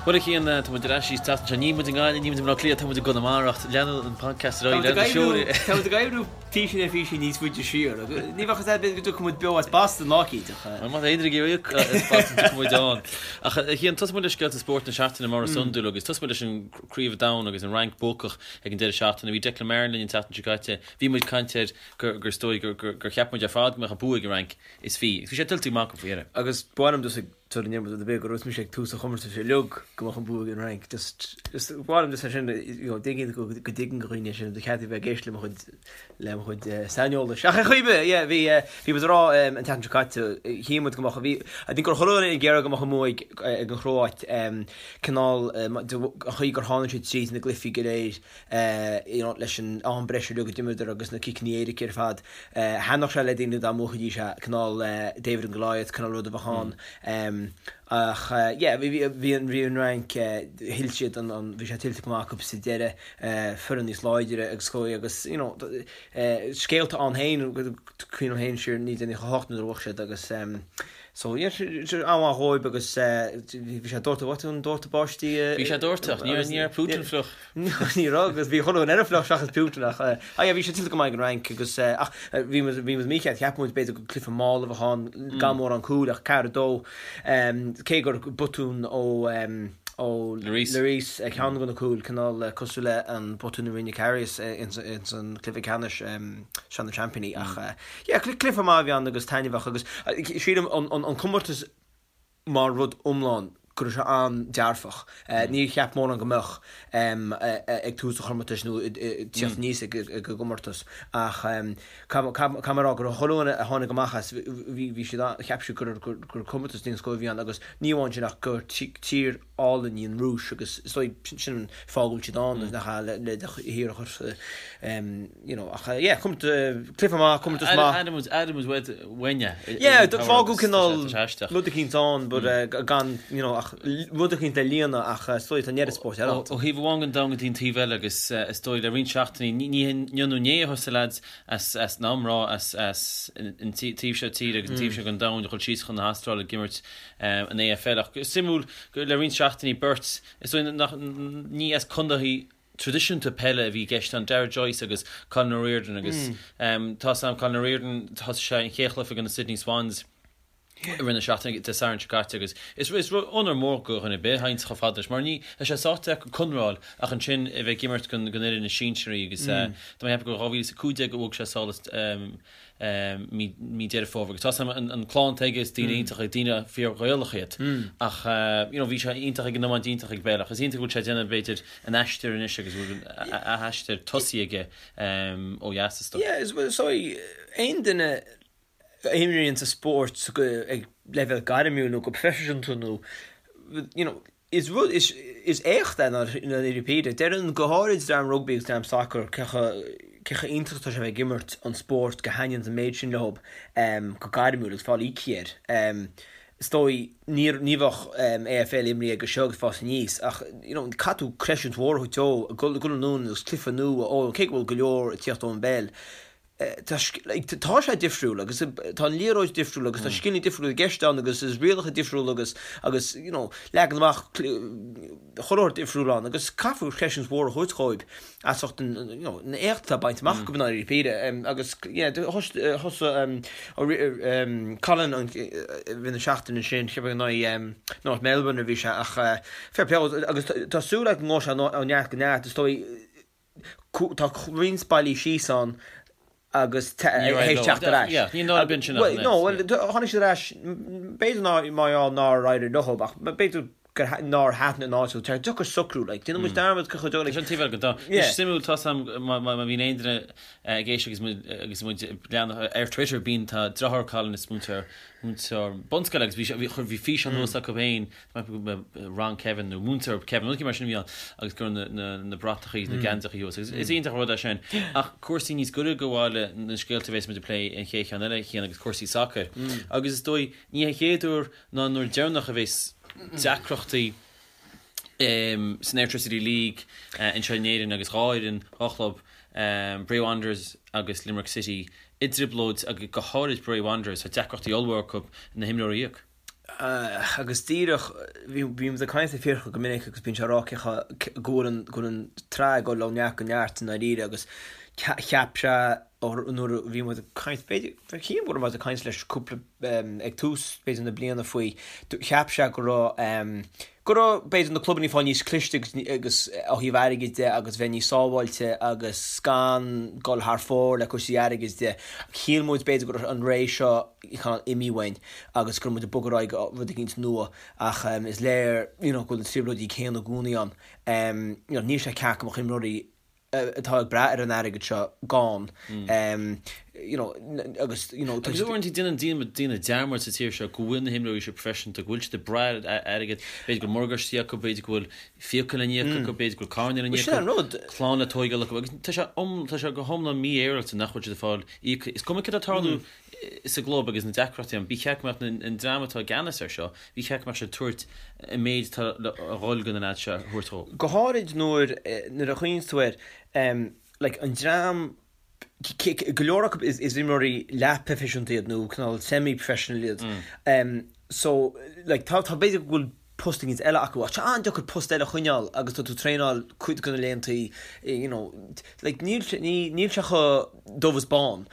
Bhuel a Chian, tá muid ar ais arís an tseachtain seo. Níl muid i nGaillimh, níl muid i mBaile Átha Cliath, tá muid i gConamara ach leanann an podcast ar aghaidh, leanann na seoil. Tá muid ag oibriú píosa ar phíosa níos faide siar. Ní bheadh fhios a'd go dtiocfaidh muid beo as Boston lá eicínt ach. Bhuel má tá aon duine ag iarraidh íoc as Boston tiocfaidh muid ann. Ach a Chian, tosóidh muid le scéalta spóirt na seachtaine mar is iondúil agus tosóidh muid leis an Craobh Domhain agus an Fhrainc buacach ag an deireadh seachtaine. Bhí Declan Marren linn an tseachtain seo caite. Bhí muid ag caint air gur is dóigh gur cheap muid ar fad go mbeadh an bua ag an Fhrainc is bhí. Agus bhí sé tuillte go maith acu faoi dheireadh. Agus ba mhaith liom just ag Tar an iomad rud ar bith go raibh mise ag tús an chomórtais uilig go mbeadh an bua ag an Fhrainc. Just, just, ba mhaith liom just é sin, you know, dtuigeann go, go dtuigeann go dhaoine é sin, ba cheart a bheith ag éisteacht le mo chuid, le mo chuid saineolais. Ach ar chaoi ar bith, yeah, bhí, bhí muid ag rá an tseachtain seo caite, shíl muid go mbeadh, bhí, I think gur chuile dhuine ag iarraidh go mbeadh an bua ag, ag an Chróit, cineál, an chaoi gur tháinig siad tríd na gcluichí go léir, you know, leis an am breise uilig a d'imríodar agus na ciceanna éirice ar fad. Thaitneodh sé le daoine dá mbuafaidís é, cineál David and Goliath, cineál rud a bheadh ann. Ach yeah, bhí, bhí an, bhí an Fhrainc, thuill siad an, an, bhí sé tuillte go maith acu sa deireadh, foireann níos láidre agus chuaigh agus, you know, scéalta ann féin, cuimhním féin siar 1998 nuair a bhuaigh siad agus, So yeah, an-mhaith dhóibh agus bhí sé doirteadh, an doirteadh báistí. Bhí sé doirteadh, ní raibh Putin fliuch. Ní raibh agus bhí chuile dhuine eile fliuch seachas Putin ach ah yeah bhí sé tuillte go maith ag an Fhrainc agus ach bhí muid bhí muid mícheart, cheap muid b'fhéidir gur cluiche mall a bheadh ann gan mórán cúil ach 4-2 cé gur botún ó ó Lloris. Lloris ceann de na cúil cineál cosúil le an botún a rinne Karius ins an cluiche ceannais Sraith na Seaimpíní ach Yeah, cluiche maith a bhí ann agus taitneamhach agus sílim an comórtas mar rud iomlán go raibh sé an-dearfach. Níor cheap mórán go mbeadh ag tús an chomórtais nó ag tíocht aníos ag an gcomórtas ach caithfidh mé a rá go raibh chuile dhuine a tháinig amach as bhí siad cheap siad gur comórtas den scoth a bhí ann agus ní amháin sin ach gur tír álainn í an Rúis agus is dóigh sin an fáth go bhfuil siad ann nach ea le le do thír a chur you know ach yeah comórtas cluiche maith comórtas maith. Airím airím uaid uainne Yeah fágadh cineál rud eicínt ann but gan you know ach rud eicínt le líonadh ach is dóigh tá an oiread spóirt eile ann. Ó thaobh amháin den domhan go dtí an taobh eile agus is dóigh le roinnt seachtainí ní inniu nó inné a thosaigh lads as as an iomrá as as an taobh seo tíre agus an taobh seo den domhan a dhul síos chun na hAstráile ag imirt an AFL ach is suimiúil gur le roinnt seachtainí beirt is dóigh nach ní as contaetha traidisiúnta peile a bhí i gceist ann, Darragh Joyce agus Colin O'Riordan agus tá 's a'm Colin O'Riordan thosaigh sé an chéad chluiche do na Sydney Swans i rith na seachtaine Dé Sathairn seo caite agus is is onóir mór do dhuine ar bith a théanns chomh fada leis mar ní tá sé sách deacair conradh a fháil ach ansin a bheith ag imirt don don fhoireann is sinsearaí agus tá mé ag ceapadh gur 2015 a bhuaigh sé sall mí mí Deireadh Fómhair agus tá 's a'm an clann atá aige is daoine iontacha daoine fíor-Ghaelach iad ach you know bhí sé iontach ag an iomáint iontach ag peil ach is iontach go bhfuil sé ag déanamh b'fhéidir an aistear anois agus go bhfuil a aistear tosaithe aige ó dheas is dóigh. Yeah is well so aon duine a imríonn sa spórt ag leibhéal gairmiúil nó go proifisiúnta nó you know Is rud, is, is éacht é i ndáiríre píre. Déarfainn go háirid dream rugbaí agus dream sacair cé chomh, cé chomh iontach atá sé a bheith ag imirt an spórt go thaitníonn an méid sin leo go gairmiúil agus fáil íoctha air. Is dóigh, ní, ní bheadh AFL imrithe aige seo agus fás aníos ach you know caithfidh tú creidiúint mhór a thabhairt dó, ag dul anonn agus cluiche nua a fhoghlaim, cé go bhfuil go leor ag tíocht ón bpeil. Tá sé difriúil agus tá an liathróid difriúil agus tá scileanna difriúla i gceist ann agus is rialacha difriúla agus agus you know leagan amach chuile shórt difriúil ann agus caithfear creidiúint mhór a thabhairt dhóibh as ucht an you know an éacht atá bainte amach acu i ndáiríre píre agus yeah thosaigh Colin an i rith na seachtaine sin cheapfainn in aghaidh North Melbourne a bhí sé ach fair play agus tá súil agam go ngabhfaidh sé ó neart go neart is dóigh Tá roinnt bailí síos ann agus théis teacht ar ais. Ní nárbh in sin ach an oiread. Bhuel, tháinig siad ar ais, b'fhéidir ná mar gheall nár éirigh leo ach b'fhéidir gur nár thaitin an áit leo. Tá deacair socrú, like, déanann muid dearmad cé chomh deacair. Tá sin taobh eile den domhan. Is suimiúil, tá 's a'm má bhíonn aon duine ag éisteacht agus muid agus muid ag leanacht ar Twitter bíonn tá deartháir Colin is múinteoir múinteoir bunscoile agus bhí sé bhí chuir bhí físeán anuas acu féin Rang Kevin nó Múinteoir Kevin, rud mar sin a bhí ann agus go raibh na bratachaí na geansachaí thuas agus is iontach an rud é sin. Ach cúrsaí níos gaire do bhaile na scéalta a bhéas muid ag plé an chéad cheann eile a Chian agus cúrsaí sacair. Agus is dóigh ní an chéad uair ná an uair deireanach a bhéas deacrachtaí san Airtricity League anseo in Éirinn agus dhá fhoireann, dhá chlub, Bray Wanderers agus Limerick City i dtrioblóid agus go háirid Bray Wanderers, tá deacrachtaí ollmhór acu na himreoirí a íoc. Agus díreach, bímid ag caint le Fiachra go minic agus bíonn sé ag rá cé go bhfuil an, go bhfuil an tsraith ag dul ó neart go neart i ndáiríre agus cheap sé nuair a bhí muid ag caint, b'fhéidir, shílim go raibh muid ag caint leis cúpla, ag tús b'fhéidir na bliana faoi, cheap sé go raibh, go raibh b'fhéidir na clubanna ag fáil níos cliste agus agus ó thaobh airgid de agus bheith níos sábháilte agus gan dul thar fóir le cúrsaí airgid de. Shíl muid b'fhéidir go raibh an ré seo cineál imithe uainn agus go raibh muid ag bogadh ar aghaidh go rud eicínt nua ach is léir you know go bhfuil na trioblóidí céanna i gcónaí ann. You know níl sé ceart go mbeadh imreoirí atá ag brath ar an airgead seo gann you know agus you know tá Agus uaireanta déanann daoine daoine dearmad sa tír seo go bhfuil na himreoirí seo proifisiúnta, go bhfuil siad ag brath ar airgead, b'fhéidir go bhfuil morgáistí acu, b'fhéidir go bhfuil fiacha le n-íoc acu, b'fhéidir go bhfuil carranna le n-íoc Sin an rud. clann le tóigeáil acu agus tá sé tá sé go hiomlán mífhéaráilte nach bhfuil siad ag fáil íoctha. Is cuma céard atá ag tarlú sa gclub agus na deacrachtaí ann, ba cheart go mbeadh an dream atá i gceannas air seo, ba cheart go mbeadh siad ag tabhairt an méid atá le dhul do na leaids seo a thabhairt dhó. Go háirid nuair nuair a chuimhníonn tú air, like an dream, go leor acu is imreoirí leath-proifisiúnta iad nó cineál semi-professional iad. So like tá tá b'fhéidir go bhfuil post éigin eile acu ach tá sé an-deacair post eile a choinneáil agus tá tú ag traenáil cuid de na laethantaí you know like níl sé ní níl sé chomh dubh is bán.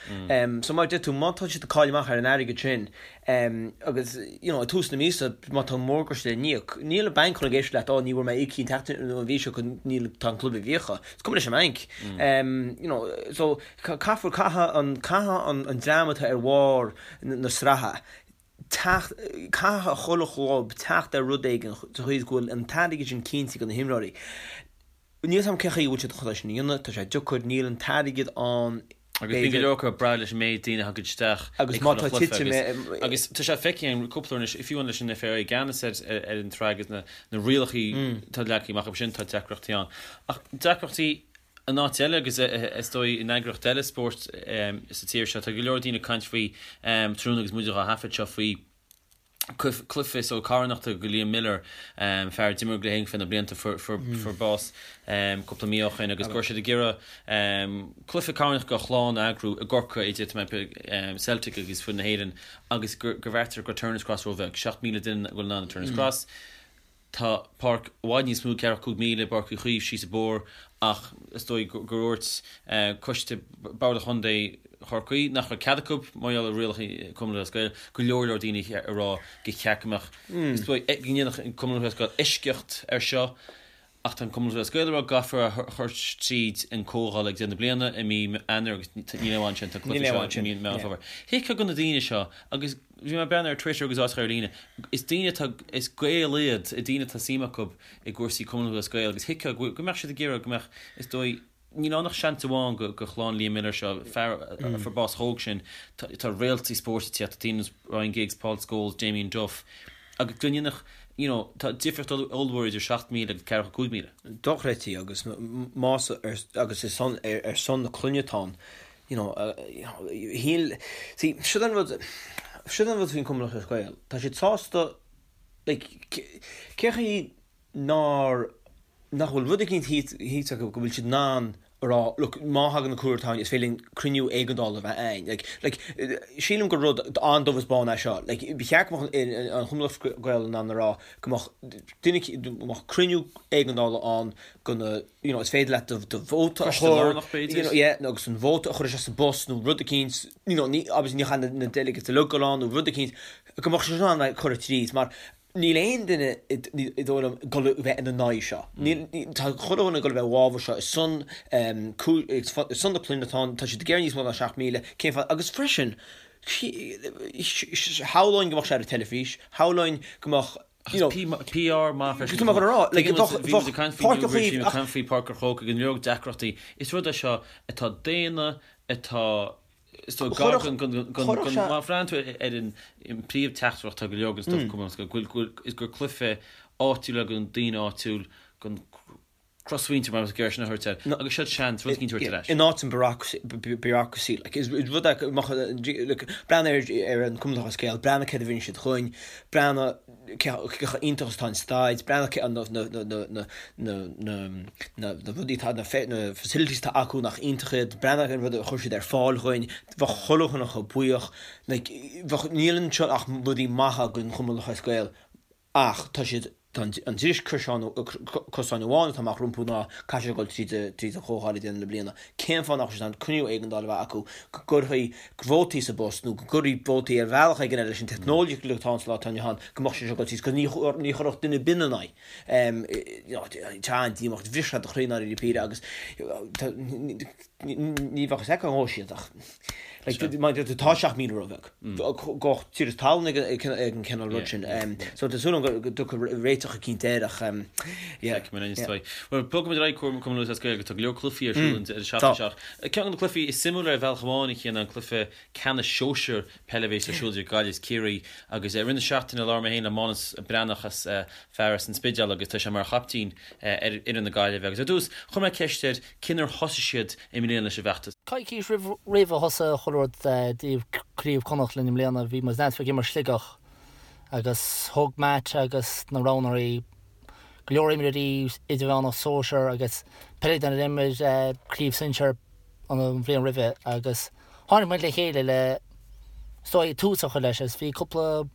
So mar a deir tú má tá siad ag cailleadh amach ar an airgead sin agus you know ag tús na míosa má tá morgáiste le n-íoc níl an banc chun ag éisteacht leat ó ní bhfuair mé íoctha an tseachtain nó an mhí seo go níl tá an club i bhfiacha. Is cuma leis an mbanc. You know so caithfear caithfidh an caithfidh an an dream atá ar bharr na sraithe teacht, caithfidh chuile chlub teacht ar rud éigin sa chaoi is go bhfuil an t-airgead sin cinnte do na himreoirí. Níl 's agam cén chaoi a bhfuil siad chun é sin a dhéanamh, tá sé deacair, níl an t-airgead ann Agus bíonn go leor acu ag brath leis an méid daoine a thagann isteach Agus má tá titim agus agus tá sé feicthe againn cúpla uair anois, fiú amháin leis an FAI i gceannas ar ar an tsraith agus na na rialacha atá leagtha amach acu sin, tá deacrachtaí ann. Ach deacrachtaí in áit eile agus is dóigh in eagraíocht eile spóirt sa tír seo, tá go leor daoine ag caint faoi tráthnóna agus muid á thaifead seo faoi cluiche so carthanachta do Liam Miller, fear a d'imir le hÉirinn fé na blianta fuair bás cúpla mí ó shin agus go raibh siad ag iarraidh cluiche carthanachta dá chlann a eagrú i gCorcaigh idir Celtic agus foireann na hÉireann agus gur bheartaíodar go raibh Turner's Cross róbheag, 7,000 duine a bhfuil in ann i Turner's Cross. Tá páirc i bhfad níos mó, 45,000 i bPáirc Uí Chaoimh síos an bóthar ach is dóigh gur dhúirt coiste Bord Chontae Chorcaí nach raibh cead acu, mar gheall ar rialacha Cumann Lúthchleas Gael, go leor leor daoine ag rá gur cheart go mbeadh, is dóigh, go ndéanfadh an Cumann Lúthchleas Gael eisceacht ar seo ach tá an Cumann Lúthchleas Gael ag rá go gcaithfear a chur tríd an comhdháil ag deireadh na bliana i mí Eanáir agus níl aon ansin, tá an cluiche seo i mí Meán Fómhair. Thuigfeá do na daoine seo agus Bhí mé ag breathnú ar Twitter agus áiteacha ar líne. Is daoine atá, is Gaeil iad, daoine atá suim acu i gcúrsaí Cumann Lúthchleas Gael agus thuigfeá go go mbeadh siad ag iarraidh go mbeadh, is dóigh, níl ann ach seans amháin go go chlann Liam Miller seo, fear a fuair bás chomh hóg sin, tá tá réaltaí spóirt ag tíocht, tá daoine ar nós Ryan Giggs, Paul Scholes, Damien Duff agus go ndéanfadh, you know, tá difríocht ollmhór idir 7,000 agus 45,000. Dochreidte agus más agus is son ar son na clainne atá ann. you know, shíl, see, siod an rud, siod an rud faoin Cumann Lúthchleas Gael, tá siad sásta, like, cé chaoi nár, nach bhfuil rud eicínt thíos acu go bhfuil siad in ann a rá, look, má thagann an cúlú artháin, is féidir linn cruinniú éigeandála a bheith a'ainn. Like, like, sílim gur rud an-dubh is bán é seo. Like, ba cheart go mbeadh an Cumann Lúthchleas Gael in ann a rá go mbeadh duine, go mbeadh cruinniú éigeandála ann go na, you know, is féidir leat do, do vóta a Coiste chur, lárnach, b'fhéidir. you know, yeah, nó agus an vóta a chur isteach sa bpost nó rud eicínt, you know, ní, obviously ní chaithfidh na, na delegates uilig dul ann nó rud eicínt, go mbeadh sé in ann like, cur tríd, mar níl aon duine i, i dóigh liom ag dul a bheith ina n-aghaidh seo. Níl, ní, tá chuile dhuine ag dul a bheith i bhfabhar seo, ar son, um, cú, ar son na clainne atá ann, tá siad ag iarraidh níos mó ná 7,000, cén fáth, agus freisin, shamhlóinn go mbeadh sé ar an teilifís, shamhlóinn go mbeadh, you know, PR maith freisin. Tá mé chun a rá, like, bheadh, bhí muid ag caint faoi Newbridge, bhí muid ag caint faoi Páirc an Chrócaigh, go leor deacrachtaí. Is rud é seo atá daonna, atá, is dóigh, gar don, don, don, don, má bhreathnaíonn tú ar an príomh-teachtaireacht atá go leor den stuif Cumann, go bhfuil, is gur cluiche áitiúil é don daoine áitiúil, don. Crosmhuintir mar is géar sin a thabhairt air agus siad seans rud éicint a thabhairt ar ais. In áit an bureaucracy, like, is rud é go mbeadh, like, breathnaigh ar an Cumann Lúthchleas Gael, breathnaigh céard a rinne siad chugainn, breathnaigh cé chomh iontach is atá an staid, breathnaigh cé na na na na na na na na rudaí atá, na na facilities atá acu nach iontach iad, breathnaigh an rud a chuir siad ar fáil chugainn, bheadh chuile dhuine chomh buíoch, like, bheadh, níl anseo ach rudaí maithe don Chumann Lúthchleas Gael. Ach tá siad, tá an dris cosáin amháin atá amach rompu ná caithfidh siad dul tríd tríd an chomhdháil ag deireadh na bliana. Cén fáth nach bhfuil siad in ann cruinniú éigeandála a bheith acu go gcuirfí vótaí sa bpost nó go gcuirfí vótaí ar bhealach éigin eile leis an teicneolaíocht atá ann sa lá atá inniu ann go mbeadh sé seo ag dul tríd 'cause ní ní chuirfeadh duine ar bith ina n-aghaidh. You know, tá an-díomách, bhris sé do chroí i ndáiríre píre agus tá Ní bheadh fhios acu an ngabhfaidh siad ach tá 7,000 róbheag. Gabhadh tír is talún ag an cineál rud sin. So tá súil agam go dtiocfaidh réiteach eicínt air ach yeah. Feicfimid anois é. Bhuel, bogfaimid ar aghaidh Cumann Lúthchleas Gael tá go leor cluichí ar siúl an deireadh seachtaine seo. Ceann de na cluichí is suimiúla ar bhealach amháin a Chian ná an cluiche ceannais sóisear peile a bheas ar siúl idir Gaillimh is Ciarraí agus i rith na seachtaine labhair mé féin le Mánas Breathnach as fear as an Spidéal agus tá sé mar chaiptín ar fhoireann na Gaillimhe agus ar dtús chuir mé ceist air conas ar thosaigh siad i mbliana leis an bhfeachtas. Coicís roimh roimh a thosaigh chuile rud dtaobh Craobh Chonnacht linn i mbliana bhí muid ag imirt Sligeach agus thug Matt agus na roghnóirí go leor imreoirí idirmheánach sóisear agus peileadóirí a d'imir craobh sinsear an bhliain roimhe agus Tháinig muid le chéile le is dóigh tús a chur leis agus bhí cúpla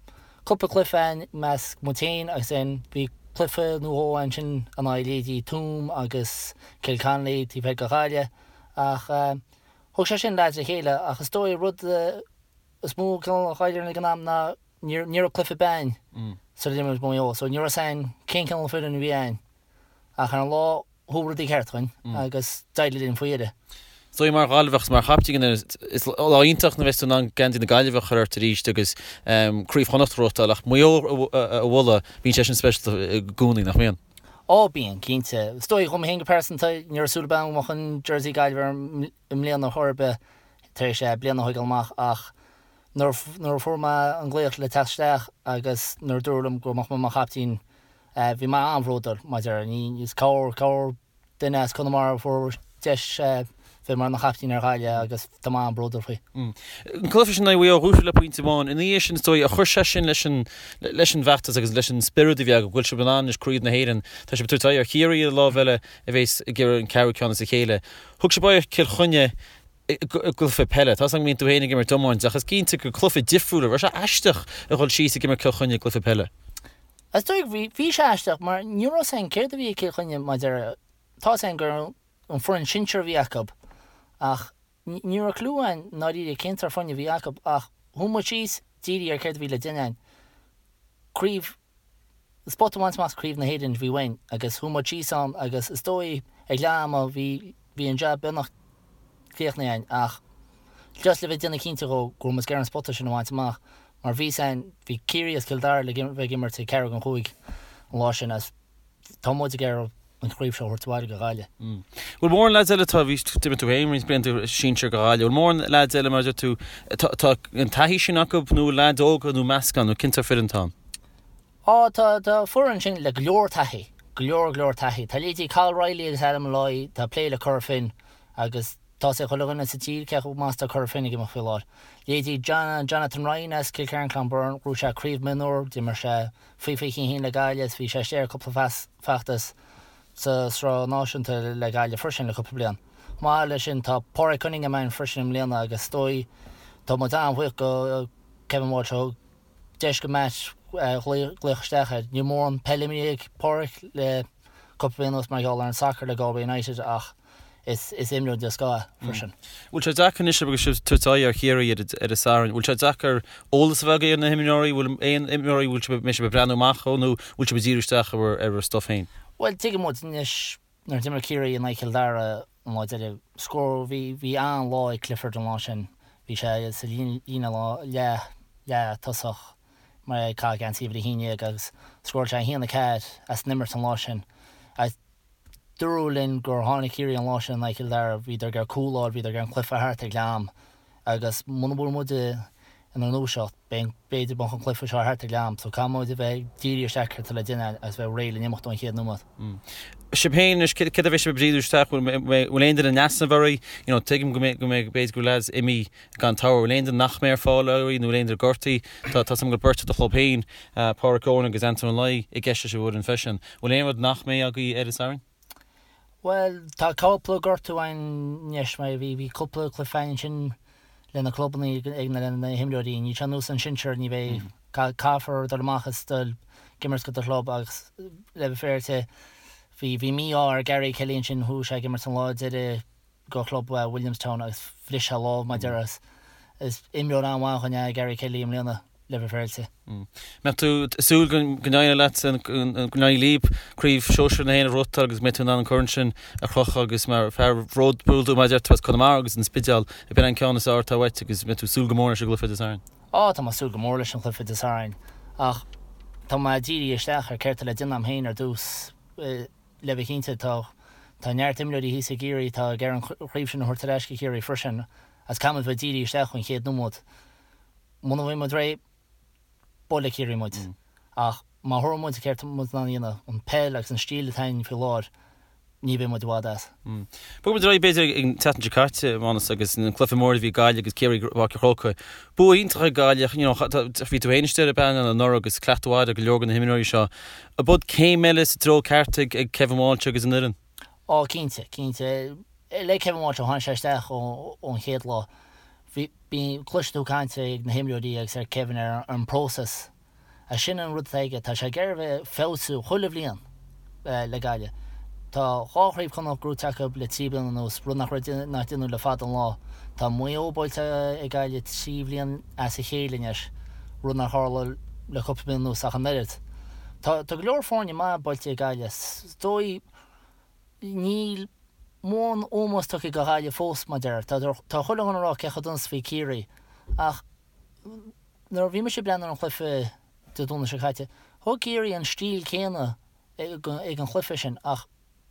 cúpla cluiche ann i measc muid féin agus then bhí cluiche nó dhó ansin in aghaidh leithéidí Tuaim agus Cill Connolly taobh thoir de Ghaillimh ach thug sé sin lads le chéile ach is dóigh rud is mó cineál a d'éirigh ag an am ná ní ní raibh cluiche ar bith againn sula d'imir muid Maigh Eo so ní raibh 'fhios againn cén cineál foireann a bhí againn ach ar an lá chuaigh rudaí ceart dhúinn agus d'éirigh linn faoi dheireadh. Is dóigh mar Ghaillimheach is mar chaiptín is lá iontach nuair a bheas tú in ann geansaí na Gaillimhe a chur ort arís agus Craobh Chonnacht a ghnóthachtáil ach Maigh Eo a bhualadh, bíonn sé sin speisialta i gcónaí, nach mbíonn? Ó bíonn, cinnte. Is dóigh dhom féin go pearsanta, ní raibh súil ar bith agam go mbeadh an jersey Gaillimhe orm i mbliana chor ar bith tar éis bliain a thógáil amach ach nuair a fuair mé an glaoch le teacht isteach agus nuair a dúradh liom go mbeadh mé mar chaiptín Bhí mé an-bhródúil maidir ní is corr corr duine as Conamara a fuair deis bheith mar na chaiptín ar Ghaillimh agus tá mé an-bhródúil faoi. An cluiche sin in aghaidh Mhaigh Eo, bhuaigh sibh le pointe amháin. Ina dhiaidh sin is dóigh, ar chuir sé sin leis an leis an bhfeachtas agus leis an spiorad a bhí agaibh, go bhfuil sibh in ann anois Craobh na hÉireann. Tá sibh ag tabhairt aghaidh ar Chiarraí ar an lámh eile a bheas ag iarraidh an ceathrú ceann as a chéile. Thug sibh aghaidh ar Chill Chainnigh i gcluiche peile. Tá 's agam go mbíonn tú féin ag imirt iomáint ach is cinnte gur cluiche difriúil, raibh sé aisteach a dhul síos ag imirt Cill Chainnigh i gcluiche peile? Is dóigh bhí, bhí sé aisteach mar ní raibh 's againn céard a bhí ag Cill Chainnigh maidir, tá 's againn gur an foireann sinsir a bhí acu ach ní raibh clue againn i ndáiríre cén sórt foirne a bhí acu ach chuaigh muid síos dírithe ar céard a bhí le déanamh againn. Craobh, spota a bhaint amach Craobh na hÉireann a bhí uainn agus chuaigh muid síos ann agus is dóigh ag leath ama bhí, bhí an jab beagnach críochnaithe againn ach just le bheith ag déanamh cinnte dhó go raibh muid ag iarraidh an spota sin a bhaint amach mar bhí 's againn, bhí Ciarraí agus Cill Dara le bheith ag imirt ag ceathrú don chúig an lá sin agus tá muid ag iarraidh an chraobh seo a thabhairt abhaile go Gaillimh. Bhfuil mórán leaids eile atá, bhí, d'imir tú féin roinnt blianta sinsir go Ghaillimh, bhfuil mórán leaids eile mar a deir tú, tá, tá an taithí sin acu nó leaids óga nó meascán nó cén sórt foireann atá ann? Á, tá, tá foireann ansin le go leor taithí, go leor, go leor taithí. Tá leithéidí Cathal Reilly agus Adam Molloy, atá ag plé le Cora Finne agus tá 's ag chuile dhuine sa tír cé chomh maith is atá Cora Finne ag imeacht faoi láthair. Leithéidí John, Jonathan Ryan as Cill Chiaráin Clonberne, ghnóthaigh sé craobh mionúr, d'imir sé faoi 21 le Gaillimh is bhí sé istigh ar cúpla feachtas sa Sraith Náisiúnta le Gaillimh freisin le cúpla bliain. Chomh maith leis sin tá Pádraig Cunningham ann freisin i mbliana agus is dóigh tá muid an-bhuíoch go Kevin Walsh a thug deis go Matt glaoch isteach air. Níl mórán peile imeartha ag Pádraig le cúpla bliain anuas mar gheall ar an sacar le Galway United ach is imreoir den scoth é freisin. Bhfuil sé deacair anois agus sibh ag tabhairt aghaidh ar Chiarraí ar an Satharn, bhfuil sé deacair eolas a bheith agaibh ar na himreoirí, bhfuil aon imreoirí bhfuil sibh, mbeidh sibh ag breathnú amach dhó nó bhfuil sibh ag díriú isteach ar bhur, ar bhur stuff féin? Bhuel, tuigeann muid anois nuair a d'imir Ciarraí in aghaidh Chill Dara an lá deiridh, scór, bhí, bhí an-lá ag Clifford an lá sin, bhí sé sa líne leath, leath tosach mar ag caitheamh geansaí uimhir 11 agus scóráil sé 1-4 as an imirt an lá sin. Agus Dúradh linn gur tháinig Ciarraí an lá sin in aghaidh Chill Dara, bhíodar ag iarraidh cúl a fháil, bhíodar ag iarraidh an cluiche thart ag leath am agus muna bhfuil muid. inár ndúiseacht, b'fhéidir go mbeadh an cluiche seo thart ag leath am, so caithfidh muid a bheith dírithe isteach céard atá le déanamh agus bheith réidh le n-imeacht ón chéad nóiméad. Sibh féin anois, céard a bheidh sibh ag díriú isteach, bhfuil aon duine in easnamh oraibh? You know, tuigim go mbeidh, go mbeidh, b'fhéidir go bhfuil lads imithe gan togha, bhfuil aon duine nach mbeidh ar fáil oraibh nó bhfuil aon duine gortaithe? Tá, tá 's agam go bhfuil beirt i do chlub féin, Pádraic Eoin agus Anton Ó Laoi i gceist leis an bhfoireann freisin. Bhfuil aon rud nach mbeidh agaibh ar an Satharn? Bhuel, tá cúpla gortú ann anois, mar bhí, bhí cúpla cluiche ann ansin le na clubanna ag na, le na himreoirí. Níl sé ar nós an sinsear, ní bheidh, caithfear dul amach is dul ag imirt do do chlub agus le bheith féaráilte, bhí, bhí mí-ádh ar Gary Kelly ansin, chuaigh sé ag imirt an lá deiridh do chlub Williamstown agus bhris sé a lámh mar a déarfá. Is imreoir an-mhaith againn é Gary Kelly i mbliana. le bheith féaráilte. Mbeadh tú ag súil go n-éireoidh leat, go n-éireoidh libh Craobh Shóisir na hÉireann a ghnóthachtáil agus go mbeidh tú in ann an corn sin a chrochadh agus mar fear bródúil dó mar a deir tú as Conamara agus an Spidéal ab in an ceann is fearr atá uait agus mbeidh tú ag súil go mór leis an gcluiche Dé Sathairn. Á, tá mé ag súil go mór leis an chluiche Dé Sathairn ach tá mé dírithe isteach ar céard tá le déanamh agam féin ar dtús. Le bheith cinnte, tá tá neart imreoirí thíos i gCiarraí atá ag iarraidh an chraobh sin a thabhairt ar ais go Ciarraí freisin agus caithfidh muid bheith dírithe isteach ón chéad nóiméad. Muna bhfaighidh muid réidh, buailfidh Ciarraí muid. Ach má thabharfaidh muid céard tá muid in ann a dhéanamh, an peil agus an stíl atá againn faoi láthair, ní bheidh muid i bhfad as. Bogfaidh muid ar aghaidh b'fhéidir ag an tseachtain seo caite, a Mhánas, agus an cluiche mór a bhí Gaillimh agus Ciarraí i bPáirc an Chrócaigh. Bua iontach ag Gaillimh, you know, bhí tú féin istigh ar an bpainéal anuraidh agus cleachtadh mhaith ar go leor de na himreoirí seo. Ab iod céim eile sa treo ceart ag Kevin Walsh agus an fhoireann? Á, cinnte, cinnte. Le Kevin Walsh ó tháinig sé isteach ón chéad lá, bhí, bíonn, cloiseann tú caint ag na himreoirí agus ar Kevin ar an bpróiseas. Agus sin an rud atá aige, tá sé ag iarraidh a bheith ag feabhsú chuile bhliain le Gaillimh. Tá dhá chraobh Chonnacht gnóite acu le trí bliana anuas, rud nach raibh, nach déanadh le fada an lá. Tá Maigh Eo buailte ag Gaillimh trí bhliain as a chéile anois, rud nár tharla le cúpla bliain anuas ach an oiread. Tá, tá go leor foirne maith buailte ag Gaillimh. Is dóigh, níl mórán ómós tugtha do Ghaillimh fós, mar a déarfá. Tá, tá chuile dhuine ag rá cé chomh dona is a bhí Ciarraí ach nuair a bhí mise ag breathnú ar an chluiche Dé Domhnaigh seo caite, thug Ciarraí an stíl céanna ag an chluiche sin ach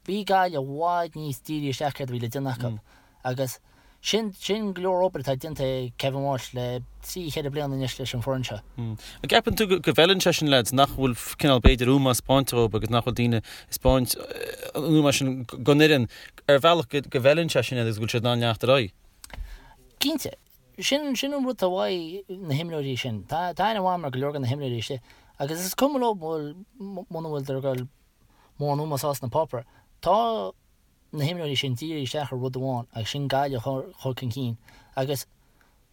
bhí Gaillimh i bhfad níos dírithe isteach céard a bhí le déanamh acu agus sin sin go leor obair atá déanta ag Kevin Walsh le trí cheithre bliana anois leis an foireann seo. An gceapann tú go bhfeileann sé sin leaids nach bhfuil cineál b'fhéidir ómós spáinte dhóibh agus nach bhfuil daoine ag spáint an ómós sin don fhoireann ar bhealach go bhfeileann sé sin iad agus go bhfuil siad in ann leanacht ar aghaidh? Cinnte. Sin sin an rud atá uaidh na himreoirí sin. Tá tá aithne mhaith agam ar go leor de na himreoirí istigh agus is cuma leo muna bhfuil ag dul mórán ómós sna páipéir. Tá na himreoirí sin dírithe isteach ar rud amháin agus sin Gaillimh a chur chun cinn agus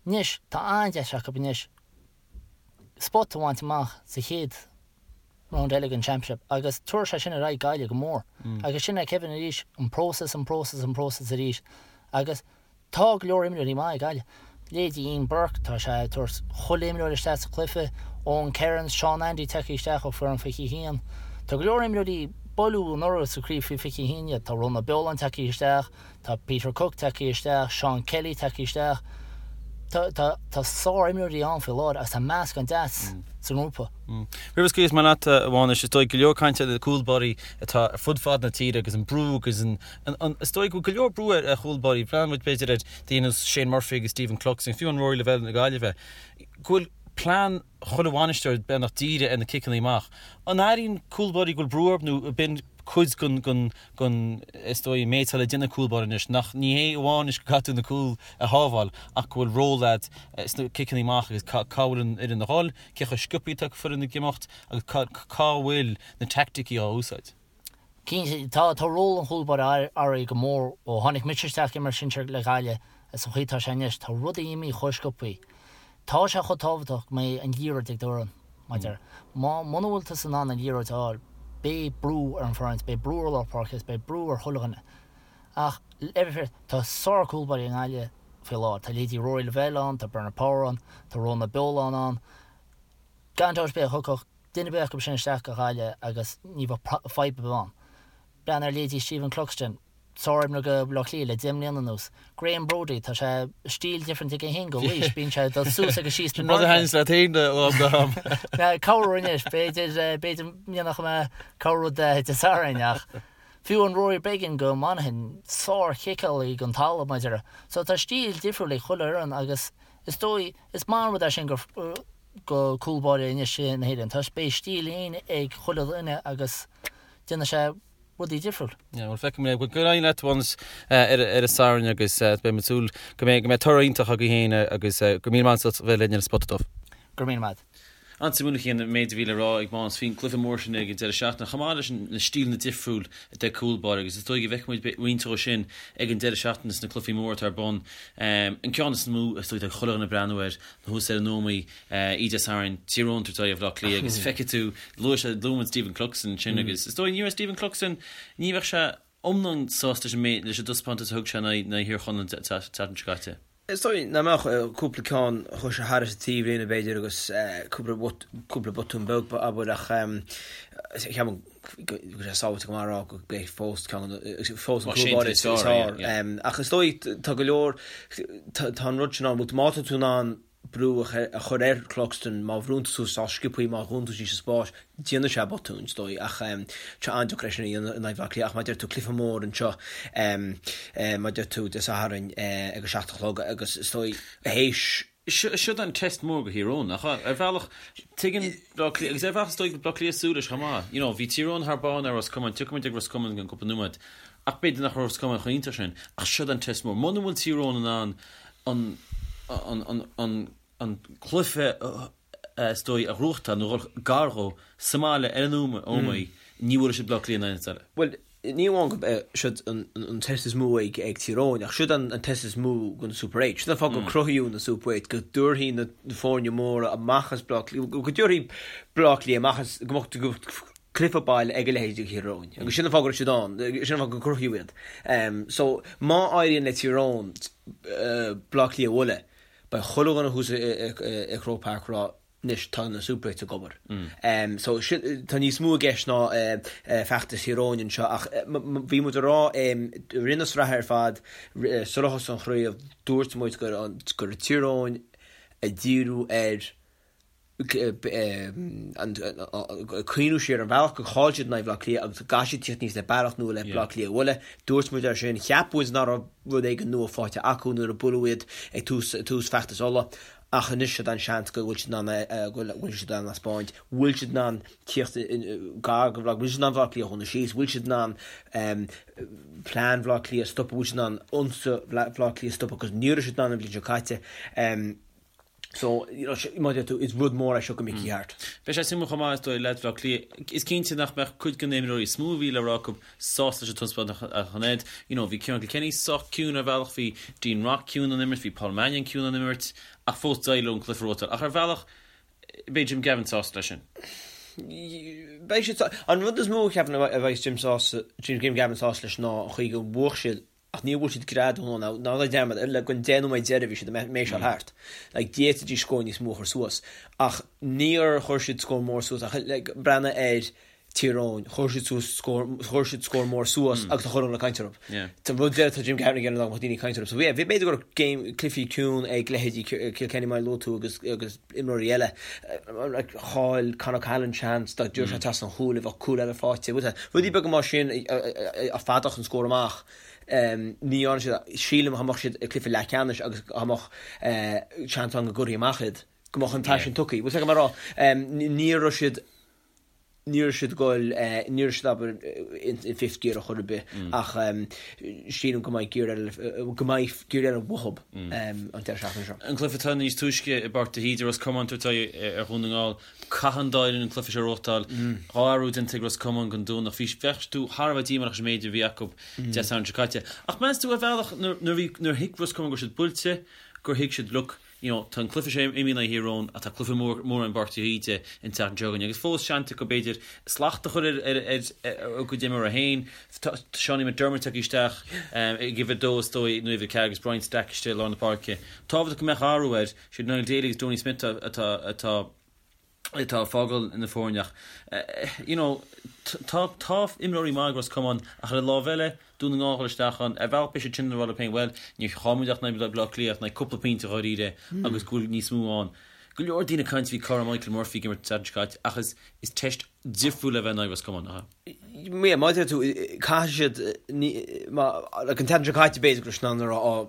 anois tá an-deis acu anois spot a bhaint amach sa chéad round eile den Championship agus tabharfaidh sé sin ar aghaidh Gaillimh go mór agus sin é Kevin arís, an próiseas, an próiseas, an próiseas arís agus Tá go leor imreoirí maith ag Gaillimh. Leithéidí Ian Burke, tá sé ag tabhairt chuile imreoir isteach sa chluiche, Owen Kerins, Seán Andy tagtha isteach ó foireann 21. Tá go leor imreoirí buaileadh anuraidh sa chraobh faoi 21 iad. Tá Rónán Ó Beoláin tagtha isteach, tá Peter Cooke tagtha isteach, Seán Kelly tagtha isteach. Tá, tá, tá sár-imreoirí ann faoi láthair agus tá meascán deas sa ngrúpa. Roimh a scaoilfeas mé leat, a Mhánais, is dóigh go leor cainte ar na cúlbáirí atá ar fud fad na tíre agus an brú agus an Is dóigh go bhfuil go leor brú ar chúlbáirí. Breathnaíonn muid b'fhéidir ar daoine ar nós Shane Murphy agus Stephen Cluxton, fiú an Rory Lavelle na Gaillimhe, go bhfuil plean chuile bhainisteoir beagnach dírithe ar na ciceanna amach. An airíonn cúlbáirí go bhfuil brú orthu nó ab in cuid den, den, is dóigh, an méid atá le déanamh ag cúlbáire anois, nach, ní hé amháin anois go gcaithfidh tú na cúil a shábháil ach go bhfuil ról agat sna ciceanna amach agus cá bhfuil an fhoireann a dhul, cé chomh sciobtha atá foireann ag imeacht agus cá bhfuil na teaicticí á úsáid. Cinnte, tá, tá ról an chúlbáire athraithe go mór ó tháinig mise isteach ag imirt sinsir le Gaillimh is an chaoi atá sé anois. Tá rudaí imithe chomh sciobtha. Tá sé chomh tábhachtach go mbeidh an liathróid ag d'fhoireann, mar a déarfá. Má, muna bhfuil tusa in ann an liathróid a fháil, beidh brú ar an bhfoireann, beidh brú ar lár páirce is beidh brú ar chuile dhuine. Ach, le bheith fair, tá sár-chúlbáirí i nGaillimh faoi láthair. Tá leithéidí Rory Lavelle ann, tá Bernard Power ann, tá Rónán Ó Beoláin ann. Gan dabht ar bith, thiocfadh duine ar bith acu sin isteach go Gaillimh agus ní bheadh fadhb ar bith ann. Breathnaigh ar leithéidí Stephen Cluxton, sár-imreoir do Bhaile Átha Cliath le 10 mbliana anuas. Graham Brody, tá sé stíl different aige féin go Laois, bíonn sé ag dul suas agus síos na Sin rud a thaitníonns leat féin ó am go ham. Corruair anois, b'fhéidir, b'fhéidir go ndéanfadh mé corrrud Dé Sathairn ach fiú an Rory Beggan go Monaghan, sár-chiceálaí den talamh, mar a déarfá. So tá stíl difriúil ag chuile fhoireann agus. Is dóigh, is maith an rud é sin go go cúl báire anois na hÉireann toisc beidh stíl fhéin ag chuile dhuine agus déanfaidh sé rudaí difriúil. Yeah, bhuel feicfidh muid é. Bhuel, go n-éirí leat Mhánas ar ar an Satharn agus beidh muid ag súil go mbeidh go mbeidh toradh iontach agaibh féin agus go raibh míle maith agat as bheith linn ar an Spota Dubh. Go raibh míle maith. An-suimiúil an méid a bhí le rá ag Mánas faoin gcluiche mór sin ag an deireadh seachtaine, chomh maith leis na stíleanna difriúil de cúl báire agus is dóigh go bhfeicfidh muid roinnt dhó sin ag an deireadh seachtaine sna cluichí móra atá ar bun. An ceann is mó is dóigh atá chuile dhuine ag breathnú air ná thuas ar an Ómaigh oíche Dé Sathairn, Tír Eoghain ag tabhairt aghaidh ar Bhaile Átha Cliath agus feicfidh tú, luaigh sé, luaigh muid Stephen Cluxton ansin agus is dóigh ní raibh Stephen Cluxton, ní bheadh sé iomlán sásta leis an méid, leis an dtaispeántas a thug sé in aghaidh Thír Chonaill an tseachtain seo caite. Is dóigh nach mbeadh cúpla ceann a chuaigh sé thairis an taobhlíne b'fhéidir agus cúpla cúpla botún beag abair ach ceapaim go bhfuil sé sábháilte go maith a rá go mbeidh fós ceann fós an cúl báire is fearr. Ach is dóigh tá go leor tá an rud sin ann má tá tú in ann brú a chur ar Cluxton má bhrúnn tú suas sách sciobthaí má dhúnann tú síos an spás déanfaidh sé botúin is dóigh ach tá sé an-deacair é sin a dhéanamh in aghaidh Bhaile Átha Cliath ach mar a deir tú cluiche mór anseo mar a deir tú Dé Sathairn ag a 7 a chlog agus is dóigh théis Siod an test mór go Thír Eoghain ach ar bhealach tuigeann Bleá Cliath agus ar bhealach is dóigh go Bleá Cliath súil leis chomh maith. You know bhí Tír Eoghain thar barr ar Ros Comáin, tiocfaidh muid ag Ros Comáin i gceann cúpla nóiméad ach b'fhéidir nach raibh Ros Comáin chomh iontach sin ach siod an test mór. Muna bhfuil Tír Eoghain in ann an an an an cluiche is dóigh a ghnóthachtáil nó dhul gar dhó sa mbaile ar an Ómaigh, ní bhuailfidh siad Bleá Cliath in aon áit eile. Bhuel, ní amháin gurb é siod an test is mó ag Tír Eoghain, ach siod an test is mó don Super 8. Siod an fáth gur cruthaíodh na Super 8, go dtabharfaí na foirne móra amach as Bleá Cliath, go dtabharfaí Bleá Cliath amach as, go mbeadh cluiche baile ag a leithéid de Thír Eoghain. Agus sin an fáth go raibh siad ann, sin an fáth gur cruthaíodh iad. So, má éiríonn le Tír Eoghain Bleá Cliath a bhualadh, Beidh chuile dhuine thuas i Croke Park ag rá anois tá na Super 8 ag obair. So sin, tá níos mó i gceist ná feachtas Thír Eoghain anseo ach bhí muid ag rá i rith na sraithe ar fad sular thosaigh an chraobh dúirt muid go raibh Tír Eoghain ag díriú ar cuimhniú siar ar an bhealach gur chaill siad in aghaidh Bhaile Átha Cliath agus go gcaithfidh siad tíocht aníos le bealach nua le Bleá Cliath a bhualadh. Dúirt muid air sin, cheap muid nach raibh rud éigin nua faighte acu nuair a buaileadh iad ag tús tús feachtas Uladh ach anois siod an seans go bhfuil siad in ann go bhfuil siad in ann a thaispeáint, bhfuil siad in ann tíocht gar go bhfuil siad in ann Bleá Cliath a dhúnadh síos, bhfuil siad in ann plean Bhaile Átha Cliath a stopadh, bhfuil siad in ann ionsaí Bhaile Átha Cliath a stopadh agus ní raibh siad in ann an bhliain seo caite. So, you know, mar a deir tú, is rud mór é seo go Mickey Harte. Beidh sé suimiúil chomh maith, is dóigh, leaids Bhaile Átha Cliath. Is cinnte nach mbeadh cuid de na himreoirí is mó a bhí le rá acu sásta leis an taispeántas a chonaic. You know, bhí Ciarán Kilkenny sách ciúin ar bhealach, bhí Dean Rock ciúin ón imirt, bhí Paul Mannion ciúin ón imirt, ach fós d'éirigh leo an cluiche a ghnóthachtáil. Ach ar bhealach, beidh Jim Gavin sásta leis sin. Beidh siad, an rud is mó a cheapaim a bheidh Jim sásta, Jim Gavin sásta leis ná an chaoi gur bhuaigh siad Ach níor bhuail siad greadadh nó ná ná dearmad ar le go an 10 nóiméad deiridh bhí siad ag méiseáil thart. Like d'fhéadfaidís scór níos mó a chur suas. Ach níor chuir siad scór mór suas ach like breathnaigh ar Tír Eoghain, chuir siad suas scór chuir siad scór mór suas agus tá chuile dhuine ag caint orthu. Yeah. Tá rud deireadh tá Jim Gavin ag iarraidh nach mbeadh daoine ag caint orthu. So yeah, bhí b'fhéidir go raibh game cluichí ciúin ag leithéidí Kilkenny mar a luaigh tú agus agus imreoirí eile. Like chaill Con O'Callaghan seans dá dtiocfadh sé trasna an chúil a bheadh cúl eile faighte. Rudaí beaga mar sin a fadódh an scór amach. Ní dhearna siad, sílim dá mbeadh siad i gcluiche leathcheannais agus dá mbeadh seans ann go gcuirfí amach iad, go mbeadh an paisean tugtha. Bhfuil a fhios agat mar a rá, ní raibh siad ní raibh siad ag goil, ní raibh siad abair in fifth gear ar chor ar bith ach sílim go mbeidh gear eile, go mbeidh gear eile uathu an deireadh seachtaine seo. An cluiche atá níos túisce i bPáirc de hÍde, Ros Comáin ag tabhairt aghaidh ar Dhún na nGall. Caithfidh an dá fhoireann an cluiche seo a ghnóthachtáil. Dhá athrú déanta ag Ros Comáin don Domhnach. Bhí, bheadh tú thar a bheith díomách leis an méid a bhí acu Dé Sathairn seo caite. Ach meas tú ar bhealach nuair, nuair bhí, nuair thuig Ros Comáin go raibh siad buailte, gur thuig siad look, you know, tá an cluiche seo imithe in aghaidh Thír Eoghain ach tá cluiche mór, mór i bPáirc de hÍde an tseachtain seo chugainn agus fós seans acu b'fhéidir slacht a chur ar, ar, ar, ar a gcuid imreoirí féin. Tá Seánie McDermott tagtha isteach ag uimhir a dó is dóigh nó uimhir a ceathair agus Brian Stack istigh i lár na páirce. Tábhachtach go mbeadh athrú air. Siad Niall Daly agus Donie Smith atá atá atá ag fágáil na foirne ach you know tá tá imreoirí maith ag Ros Comáin ach ar an lámh eile Dún na nGall isteach ann ar bhealach beidh siad sin ag rá leo féin bhuel níor chaill muid ach in aghaidh Baile Átha Cliath ach in aghaidh cúpla pointe dháiríre agus go bhfuil níos mó ann. Go leor daoine ag caint faoi cá raibh Michael Murphy ag imirt an tseachtain seo caite ach is is teist difriúil a bheith in aghaidh Ros Comáin nach ea? Yeah, mar a deir tú, caithfidh siad, ní, má, like an tseachtain seo caite b'fhéidir go raibh siad in ann a rá, ó,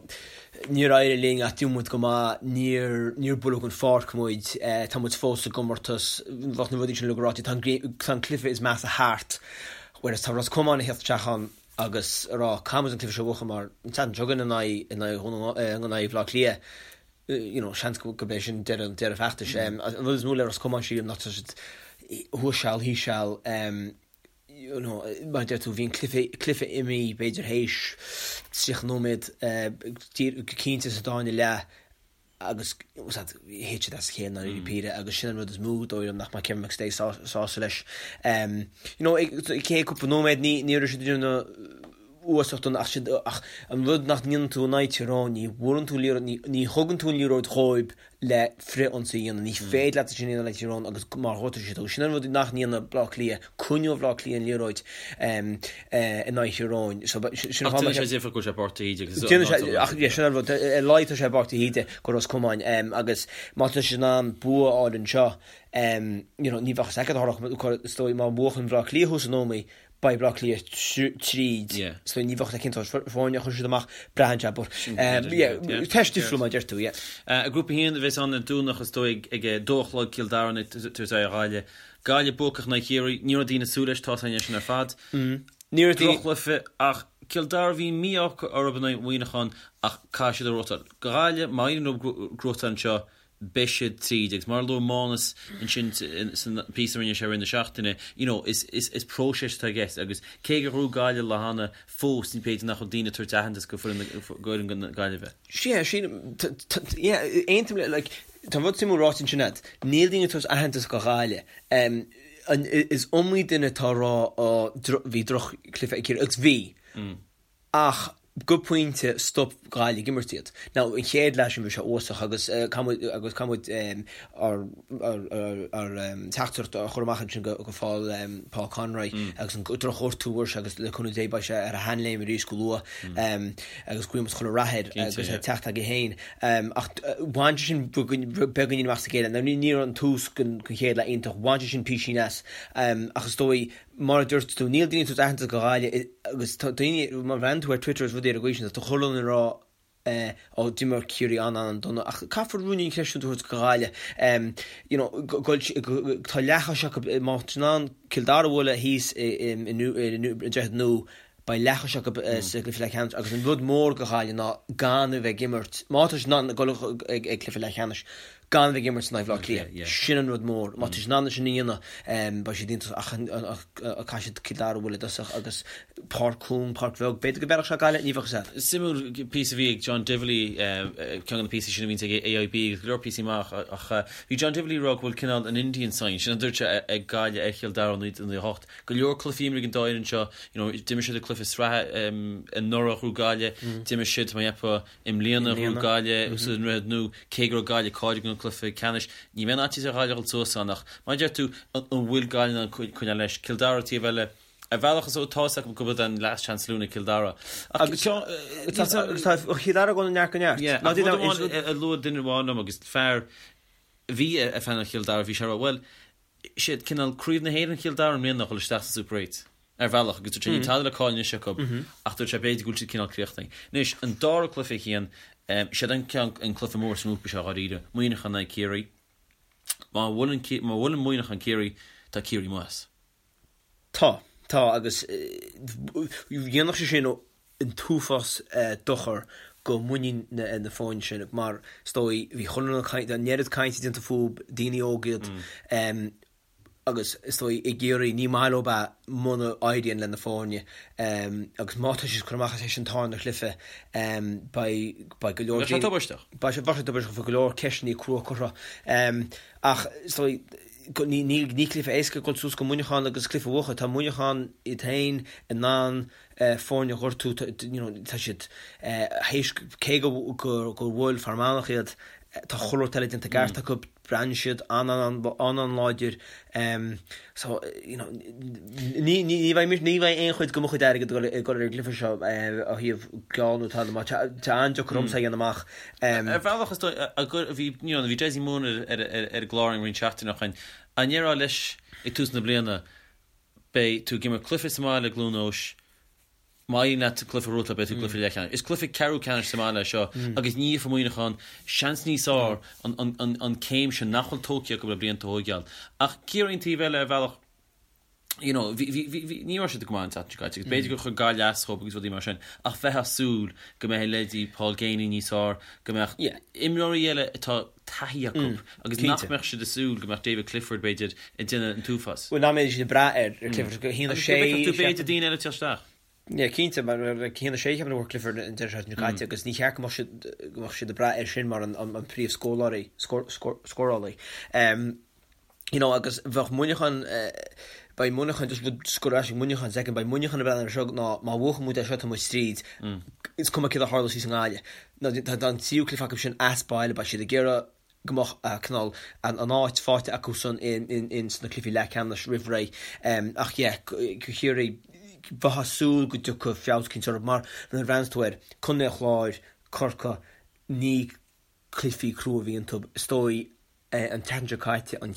Níor éirigh linn ach d'imir muid go maith, níor, níor buaileadh den pháirc muid, tá muid fós sa gcomórtas, bheadh na rudaí sin uilig ráite, tá an, tá an cluiche is measa thart, whereas tá Ros Comáin ag theacht isteach ann agus ag rá, caithfidh muid an cluiche seo a bhuachan mar an tseachtain seo chugainn in aghaidh, in aghaidh Dhún na, in aghaidh Bhaile Átha Cliath, you know, seans go, gurb é sin deireadh, deireadh feachtais. An rud is mó le Ros Comáin sílim ná tá siad thuas seal, thíos seal, you know, mar a deir tú, bhí an cluiche, cluiche imithe b'fhéidir théis 30 nóiméad, go cinnte sa dá leath agus thit siad as a chéile i ndáiríre píre agus sin an rud is mó dóigh liom nach mbeidh Kevin McStay sásta leis. You know, chéad cúpla nóiméad ní, ní raibh siad ag déanamh uasach dona ach siad, ach an rud nach ndéanann tú in aghaidh Tír Eoghain, ní bhuaileann tú an liathróid, ní, ní thugann tú an liathróid dhóibh le frith-ionsaí a dhéanamh. Ní féidir leat sin a dhéanamh le Tír Eoghain agus mar ghortaigh siad thú. Sin an rud nach ndéanann Bleá Cliath, coinneoidh Bleá Cliath an liathróid in aghaidh Thír Eoghain. So, sin Ach déanann sé difear go bhfuil sé i bPáirc de hÍde agus Déanann sé, ach yeah, sin an rud, ar a laghad tá sé i bPáirc de hÍde go Ros Comáin agus má tá siad in ann bua a fháil anseo, you know, ní bheadh a fhios agat a tharlódh, is dóigh má bhuachann Bleá Cliath thuas in Ómaigh, Beidh Bleá Cliath tríd so ní bheadh sé cinnte foirne a chuir siad amach, braitheann sé but yeah teist difriúil mar a deir tú yeah. I nGrúpa 1 a bheas ann ar Domhnach is dóigh ag a dó a chlog Cill Dara ag tabhairt aghaidh ar Ghaillimh. Gaillimh buacach in aghaidh Chiarraí, ní raibh daoine ag súil leis, tá a fhios againn é sin ar fad. Ní raibh daoine. Droch-chluiche ach Cill Dara bhí mí-ádh orthu in aghaidh Mhuineacháin ach caithfidh siad a ghnóthachtáil. Gaillimh, má éiríonn leo gnóthachtáil anseo beidh siad tríd agus mar a luaigh Mánas ansin san píosa a rinne sé i rith na seachtaine, you know, is, is, is próiseas atá i gceist agus cé gur ghnóthaigh Gaillimh lá cheana, fós ní b'fhéidir nach bhfuil daoine ag tabhairt aitheantas go foireann, go fhoireann na Gaillimhe. Sea, sílim, yeah, aontaím le, like, tá rud suimiúil ráite ansin agat, níl daoine ag tabhairt aitheantas go Ghaillimh. Um, an, is iomaí duine atá ag rá, ó, bhí droch-chluiche ag Ciarraí, agus bhí. Ach go pointe stop Gaillimh ag imirt iad. Now an chéad leath sin bhí sé uafásach agus caithfidh muid agus caithfidh muid ár ár teachtaireacht a chur amach ansin go go Paul Paul Conroy agus an drochghortú a fuair sé agus le cúnamh Dé beidh sé ar a sheanléim arís go luath agus guíonn muid chuile rath air agus é teacht aige féin. Ach bhain sé sin beagáinín amach as a chéile. Now ní ní raibh an tús den chéad leath iontach, bhain sé sin písín as ach is dóigh Mar a dúirt tú, níl daoine ag tabhairt aitheantas go Ghaillimh agus tá daoine, má bhreathnaíonn tú ar Twitter is rudaí ar an gcaoi sin, tá chuile dhuine ag rá ó d'imir Ciarraí an-an-dona ach caithfear ruainnín creidiúint a thabhairt go Ghaillimh. You know, tá leathchois acu, má tá siad in ann Cill Dara a bhualadh thíos i nDroichead Nua, beidh leathchois acu sa gcluiche leathcheannais agus an rud mór go Ghaillimh ná gan a bheith ag imirt, má tá siad in ann dul ag cluiche leathcheannais, gan a bheith ag imirt in aghaidh Bhaile Átha Cliath. Sin an rud mór. Má tá siad in ann sin a dhéanamh, beidh siad iontach ach caithfidh siad Cill Dara a bhualadh i dtosach agus páirc chúng, páirc bheag. B'fhéidir go bhfeilfeadh sé Gaillimh, ní bheadh a fhios agat. Suimiúil píosa a bhí ag John Divilly, ceann de na píosaí sin a bhíonns ag AIB agus go leor píosaí maith ach bhí John Divilly ag rá go bhfuil cineál an Indian sign, sin a dúirt sé, ag Gaillimh ar Chill Dara ó 1998. Go leor cluichí imeartha ag an dá fhoireann seo, you know, d'imir siad i cluiche sraithe anuraidh ghnóthaigh Gaillimh, d'imir siad, tá mé ag ceapadh, I mbliana ghnóthaigh Gaillimh sa nDroichead Nua, cé go raibh Gaillimh cáilithe don cluiche ceannais, ní bheidh aon fhaitíos ar Ghaillimh a dhul suas ann ach, mar a deir tú, an bhfuil Gaillimh in ann coinneáil leis? Cill Dara taobh eile, ar bhealach is tá a fhios acu gurb an last chance saloon ag Cill Dara. Ach tá Cill Dara ag dul ó neart go neart. Yeah, ach rud amháin a luaigh duine amháin liom agus fear a bhí ag fanacht Chill Dara, bhí sé ag rá, bhuel, siad cineál craobh na hÉireann Chill Dara i mbliana a dhul isteach sa Super 8 ar bhealach agus dúirt sé níl tada le cailleadh anois acu ach dúirt sé b'fhéidir go bhfuil siad cineál críochnaithe. Anois, an dara cluiche a Chian, siad an ceann, an cluiche mór sa ngrúpa seo dháiríre, Muineachán in aghaidh Ciarraí. Má bhuaileann, má bhuaileann Muineachán Ciarraí, tá Ciarraí amuigh as. Tá, tá agus dhéanfadh sé sin an t-uafás dochar go muinín na foirne sin mar is dóigh bhí chuile dhuine ag caint, an oiread cainte déanta fúthu, daoine óga iad agus is dóigh i gCiarraí ní maith leo é muna éiríonn le na foirne agus má tá siad ag cur amach as an tarna chluiche beidh beidh go leor Beidh sé tubaisteach. Beidh sé tubaisteach, beidh go leor ceisteanna crua curtha ach is dóigh ní ní cluiche éasca dul suas go Muineachán agus cluiche a bhuachan. Tá Muineachán iad féin in ann foirne a ghortú, you know, tá siad théis cé go gur bhuail Fear Manach iad, tá chuile rud eile déanta i gceart acu, breathnaíonn siad an-an-an-láidir. So, you know, ní ní bheidh ní bheidh aon chuid de mo chuid airgid ag dul ar an gcluiche seo ó thaobh geall nó tada mar tá an-deacair ormsa a dhéanamh amach. Ar bhealach is dóigh bhí you know bhí Dessie Moon ar ar an gclár roinnt seachtainí ó shin. An ndéarfá leis ag tús na bliana beidh tú ag imirt cluiche sa mbaile i gCluain Eois. Má éiríonn leat cluiche a ghnóthachtáil beidh tú i gcluiche leathcheannais. Is cluiche ceathrú ceannais sa mbaile é seo agus ní fhéadfadh Muineachán seans níos fearr an céim sin nach bhfuil tógtha acu le blianta a thóigeáil. Ach Ciarraí an taobh eile ar bhealach you know bhí bhí bhí bhí ní raibh siad go maith an tseachtain seo caite agus b'fhéidir gur chuir Gaillimh as dhóibh agus rudaí mar sin ach bheifeá ag súil go mbeidh leithéidí Paul Geaney níos fearr, go mbeadh imreoirí eile atá taithí acu agus nach mbeadh siad ag súil go mbeadh David Clifford b'fhéidir ag déanamh an t-uafás. Bhuel nach mbeidh siad ag brath ar Clifford go haon a sé. Agus go bhfeicfeadh tú b'fhéidir daoine eile ag teacht isteach. Yeah cinnte mar like 1-6 ceapaim a fuair Clifford an deireadh seachtaine seo caite agus ní cheart go mbeadh siad go mbeadh siad ag brath air sin mar an an príomh scórálaí scórálaí. You know agus bheadh Muineachán beidh Muineachán just rud just go raibh Muineachán second beidh Muineachán ag breathnú air seo ná má bhuachann muid é seo tá muid tríd is cuma céard a tharlós thíos i nGaillimh. Ná tá an tríú cluiche acu sin as baile beidh siad ag iarraidh go mbeadh cineál an áit faighte acusan in sna cluichí leathcheannais roimh ré. Ach yeah, Ciarraí, bheifeá ag súil go dtiocfadh feabhas eicínt orthu mar nuair a bhreathnaíonn tú air, Contae an Chláir, Corcaigh, ní cluichí crua a bhí iontu. Is dóigh an tseachtain seo caite an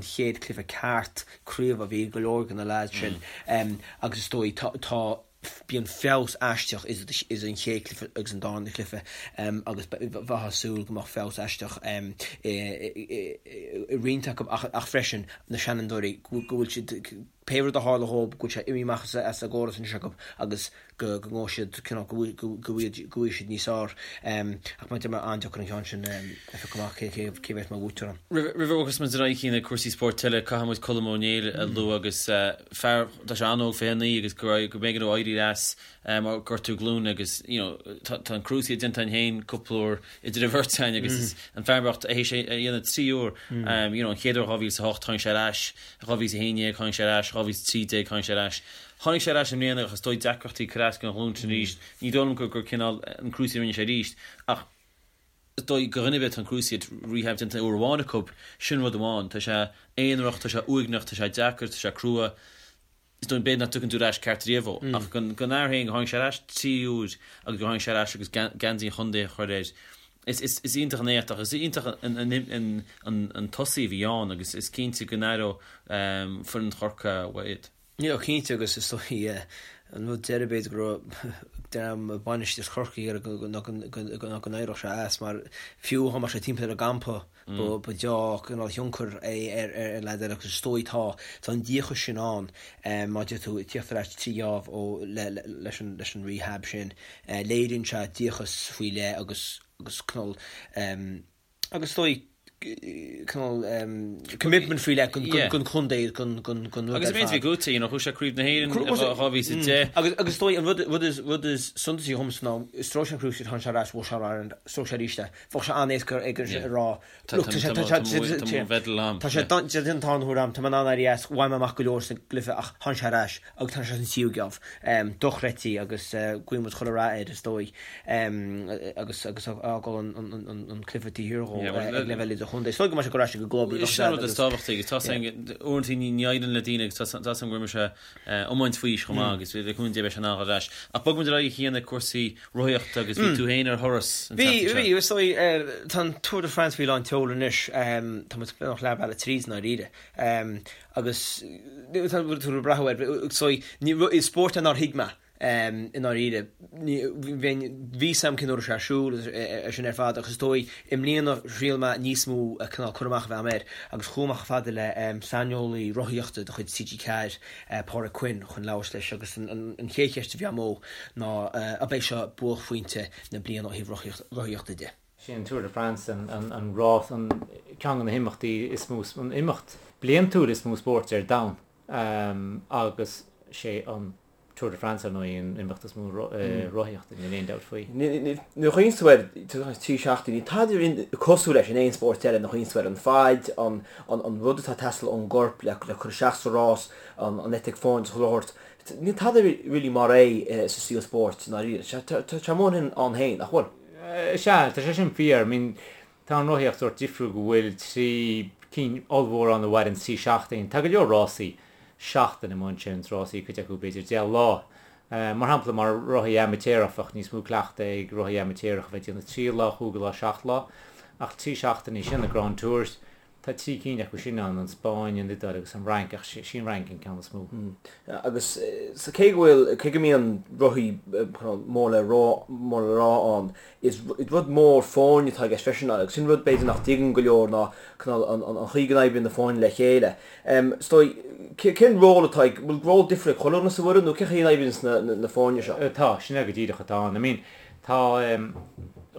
chéad chluiche ceart craoibhe a bhí ag go leor de na leaids sin agus is dóigh tá Bíonn feabhas aisteach idir an chéad chluiche agus an darna cluiche agus bheifeá ag súil go mbeadh feabhas aisteach i roinnt acu ach freisin na seanfhondúirí go bhfuil siad, pé rud a tharla dhóibh, go bhfuil sé imithe amach as an gcóras anois acu agus go ngabhfaidh siad cineál, go bhfaighidh siad níos fearr. Ach mar a deir mé, an-deacair an ceann sin a phiocadh amach cé a bheas mar bhuaiteoir ann. Roimh a bhogfas muid ar aghaidh chuig na cúrsaí spóirt eile, caithfidh muid Colm Ó Néill a lua agus fear, tá sé an-óg, 29, agus go raibh, go mb'éigean dó éirí as mar gortú glúine agus you know tá tá an cruciate déanta againn féin cúpla uair idir an bheirt againn agus is an fear bocht théis é a dhéanamh 3 uair you know an chéad uair 2008 tháinig sé ar ais, 2011 tháinig sé ar ais, 2013 tháinig sé ar ais. Tháinig sé ar ais i mbliana ach is dóigh deacrachtaí cur as don ghlúin sin arís. Ní dóigh liom gur gur cineál an cruciate a rinne sé arís ach Is dóigh do dhuine ar bith atá an cruciate rehab déanta uair amháin acu, sin rud amháin. Tá sé aonarach, tá sé uaigneach, tá sé deacair, tá sé crua. Is dóigh b'fhéidir nach dtiocfaidh tú ar ais ceart riamh ó. Ach don fhear féin, gur tháinig sé ar ais trí uair agus gur tháinig sé ar ais agus geansaí an chontae a chur air, is is iontach an éacht ach is iontach an an tosaí a bhí ann agus is cinnte go n-aireoidh foireann Chorcaí uaidh iad. Yeah cinnte agus is dóigh an rud deiridh b'fhéidir go raibh dream bainistíocht Chorcaí ag iarraidh ná go n-éireodh sé as mar fiú dá mbeadh sé timpeall ar an gcampa ba deá cineál thionchar é ar ar leaid eile agus is dóigh tá tá an díocas sin ann mar a deir tú ag tíocht ar ais trí gheábh ó le leis an leis an rehab sin léiríonn sé díocas faoi leith agus agus cineál Agus is dóigh, cineál commitment faoi leith don chontae, don rud ar fad. Agus an méid a bhí gnóthaithe, you know, chuaigh sé Craobh na hÉireann i 2010. Agus is dóigh, an rud is rud is suntasaí dhomsa ná, stróic sé an cruciate, tháinig sé ar ais, bhuaigh sé All-Ireland, stróic sé arís é. Bheadh sé an-éasca aige a rá, look, tá sé, tá sé, tá sé, tá sé an tarna huair a'm, tá mé in ann éirí as, bhain mé amach go leor sa gcluiche ach tháinig sé ar ais agus tháinig sé san tríú geábh. Dochreidte agus guíonn muid chuile rath air is dóigh. agus agus a fhágáil an cluiche taobh thiar dhó ag leibhéal idirchontae. Is dóigh go mbeidh sé ag dul ar ais ag an gclub. Sin an rud is tábhachtaí agus tá uaireanta ní éiríonn le daoine agus tá a fhios agam go raibh sé iomáint faoi aois chomh maith agus le cúnamh Dé beidh sé in ann dul ar ais. Ach bogfaidh muid ar aghaidh chuig na cúrsaí rothaíochta agus bhí tú féin ar thuras an tseachtain seo. Bhí, bhí, is dóigh tá an Tour de France faoi lán tseoil anois, tá muid beagnach leath bealaigh tríd i ndáiríre. Agus tá tú ag brath air, is dóigh, is spórt é nár thuig mé. I ndáiríre, bhí fhios a'm cén uair a raibh sé ar siúl agus sin ar fad ach is dóigh i mbliana thriail mé níos mó cineál cur amach a bheith a'm air agus chuaigh mé chomh fada le saineolaí rothaíochta de chuid TG4, Pádraig Quinn, chun labhairt leis agus an chéad cheist a bhí a'm dó ná ab é seo buaicphointe na bliana ó thaobh rothaíochta de. Sin an Tour de France, an rás, an ceann de na himeachtaí is mó, an imeacht bliantúil is mó spóirt ar domhan agus sé an Tour de France, ar ndóigh, an imeacht is mó rothaíochta, níl aon dabht faoi. Nuair a chuimhníonn tú air, trí seachtaine, níl tada cosúil leis in aon spórt eile nuair a chuimhníonn tú air, an faid, an rud atá ag teastáil ón gcorp le cur isteach sa rás, an eitic foirne is chuile shórt. Níl tada really mar é sa saol spóirt, i ndáiríre. Tá sé mór ann féin, nach bhfuil? Sea, tá sé sin fíor. I mean, tá an rothaíocht sórt difriúil go bhfuil trí cinn ollmhór ann a mhaireann trí seachtaine. Tá go leor rásaí seachtaine amuigh ansin, rásaí, cuid acu b'fhéidir 10 lá. Mar shampla, mar rothaí amaitéarach, bheadh níos mó cleachtaidh ag rothaí amaitéarach a bheith ag déanamh 3 lá, 5 lá, 7 lá, ach 3 seachtainí, sin na Grand Tours. Tá 3 cinn acu sin ann, an Spáinn, an Iodáil agus an Fhrainc, ach sí an Fhrainc an ceann is mó. Agus cé go bhfuil, cé go mbíonn rothaí mór le rá, mór le rá ann, is rud mór foirne atá i gceist freisin agus sin rud b'fhéidir nach dtuigeann go leor ná cineál an chaoi go n-oibríonn na foirne le chéile. Is dóigh, cén ról atá ag, bhfuil ról difriúil ag chuile dhuine sa bhfoireann nó cén chaoi a n-oibríonn na foirne seo? Tá, sin é go díreach atá ann. I mean, tá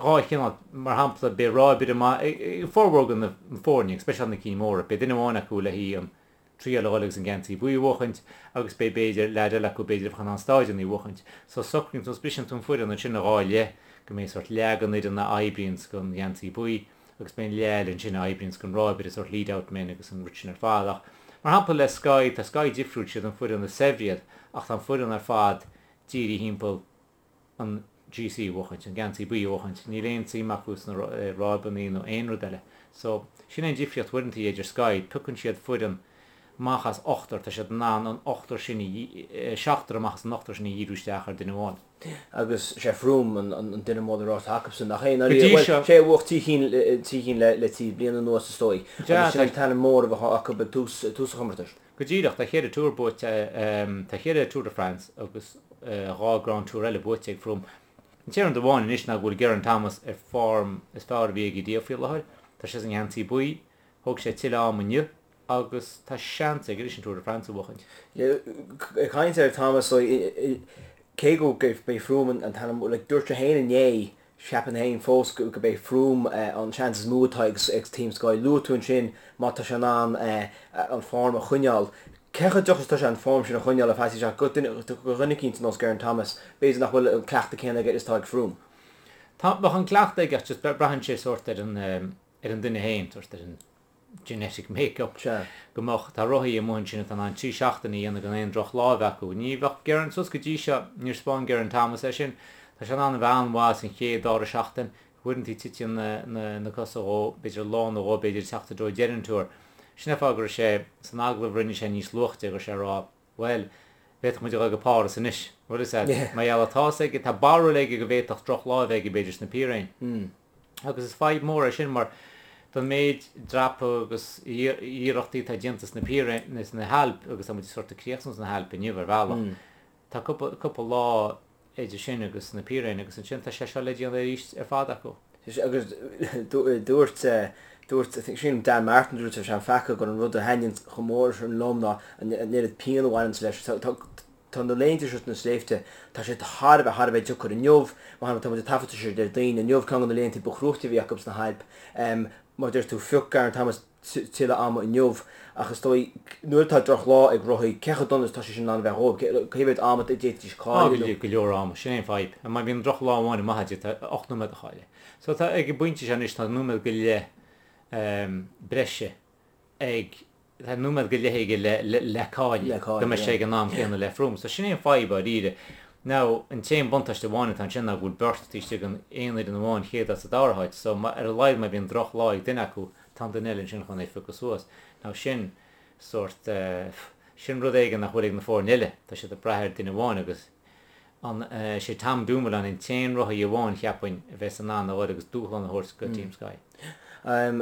2 chineál, mar shampla, beidh ráibaire maith ag formhór de na foirne, go speisialta na cinn mhóra, beidh duine amháin acu le haghaidh an triail a dhul agus an geansaí buí a bhuachaint agus beidh b'fhéidir leaid eile acu b'fhéidir a bheadh in ann stáideanna a bhuachaint. So socraíonn tú, briseann tú an foireann ansin i 2 leith go mbeidh sórt leath den fhoireann a oibríonns don gheansaí buí agus beidh an leath eile ansin a oibríonns don ráibaire, sórt lead out men agus an rud sin ar fad. Ach mar shampla le Sky, tá Sky difriúil, siad an foireann is saibhre iad ach tá an foireann ar fad dírithe thimpeall an GC a bhuachaint, an geansaí buí a bhuachaint. Níl aon tsuim acu sna ráibeanna nó aon rud eile. So, sin é an difríocht uaireanta idir Sky, piocann siad foireann amach as ochtar, tá siad in ann an ochtar sin a, seachtar amach as an ochtar sin a dhíriú isteach ar duine amháin. Agus sé Froome an duine mór le rá atá acusan, nach é? Go dtí seo. Sé a bhuaigh trí chinn, trí chinn le 3 bliana anuas is dóigh. Agus sin an t-ainm mór a bheadh acu ag tús, tús an chomórtais. Go díreach, tá cheithre Tour buaite, tá cheithre Tour de France agus 2 Grand Tour eile buaite ag Froome. An t-aon rud amháin anois ná go bhfuil Geraint Thomas ar form is fearr a bhí aige riamh faoi láthair. Tá sé sa ngeansaí buí, thóg sé tuilleadh ama inniu agus tá seans aige anois an Tour de France a bhuachaint. Ag caint ar Thomas, cé go b'é Froome an t-ainm, like, dúirt sé féin inné Cheapfainn féin fós go b'é Froome an seans is mó atá ag Team Sky. Luaigh tú ansin má tá sé in ann an form a choinneáil. Cé chomh deacair is atá sé an form sin a choinneáil ar feadh sé go dhuine eicínt ar nós Geraint Thomas, b'fhéidir nach bhfuil an cleachtadh céanna aige is atá ag Froome. Tá, bheadh an cleachtadh aige ach just braitheann sé sórt ar an ar an duine féin, sórt ar an genetic make-up. Sea. Go mbeadh, tá rothaí amuigh ansin atá in ann 3 seachtaine a dhéanamh gan aon droch lá a bheith acu. Ní bheadh Geraint, suas go dtí seo, níor spáin Geraint Thomas é sin. Tá sé in ann a bheith an-mhaith san chéad, dara seachtain. Uaireanta titeann na, na, na cosa dhó, b'fhéidir lá nó dhó, b'fhéidir ag teacht i dtreo deireadh an Tour. Sin é fáth go raibh sé, san agallamh a rinne sé níos luaithe, go raibh sé ag rá, bhuel, bhféadfadh muid a dhul go Páras anois. Bhfuil fhios a'd? Mar gheall tá fhios aige, tá barúil aige go bhféadfadh droch lá a bheith aige b'fhéidir sna Piréin. Agus is fadhb mhór é sin mar don méid dreapadh agus iarrachtaí atá déanta sna Piréin, sna hAilp, agus tá muid sort ag críochnú sna hAilp inniu ar bhealach, tá cúpla, cúpla lá idir sin agus na Piréin agus ansin tá sé seo le déanamh arís ar fad acu. Agus dúirt, dúirt, I think sílim Dan Martin dúirt sé an feaca gur an rud a thaitníonn chomh mór sin liom ná an oiread pian a bhaineanns leis. Tá, tá na laethanta seo sna sléibhte, tá sé thar a bheith, thar a bheith deacair. Inniu, mar shampla, tá muid ag taifeadadh seo Déardaoin, inniu ceann de na laethanta ba chruaite a bhí acu sna hAilp. Mar a deir tú, phioc Geraint Thomas tuilleadh ama inniu ach is dóigh nuair atá drochlá ag rothaí, cé chomh dona is atá sé sin in ann a bheith dhóibh? Cé mhéad ama a d'fhéadfaidís cailleadh nó. Go leor ama, sin é an fadhb. Má bhíonn drochlá amháin maith agat, tá 8 nóiméad a chailleadh. So tá, ag an bpointe seo anois, tá nóiméad go leith breise ag, tá nóiméad go leith aige le, le, le cailleadh, go mbeidh sé ag an am céanna le Froome. So sin é an fadhb dáiríre. Now, an t-aon buntáiste amháin atá ansin ná go bhfuil beirt taobh istigh den aon fhoireann amháin, chéad áit sa dara háit. So ar a laghad má bhíonn drochlá ag duine acu, tá an duine eile ansin chun é a phiocadh suas. Now sin sórt, sin rud éigin nach bhfuil ag na foirne eile, tá siad ag brath ar duine amháin agus an, sé Tom Dumoulin an t-aon rothaí amháin cheapfainn a bheas in ann a dhul agus dúshlán a thabhairt go Team Sky.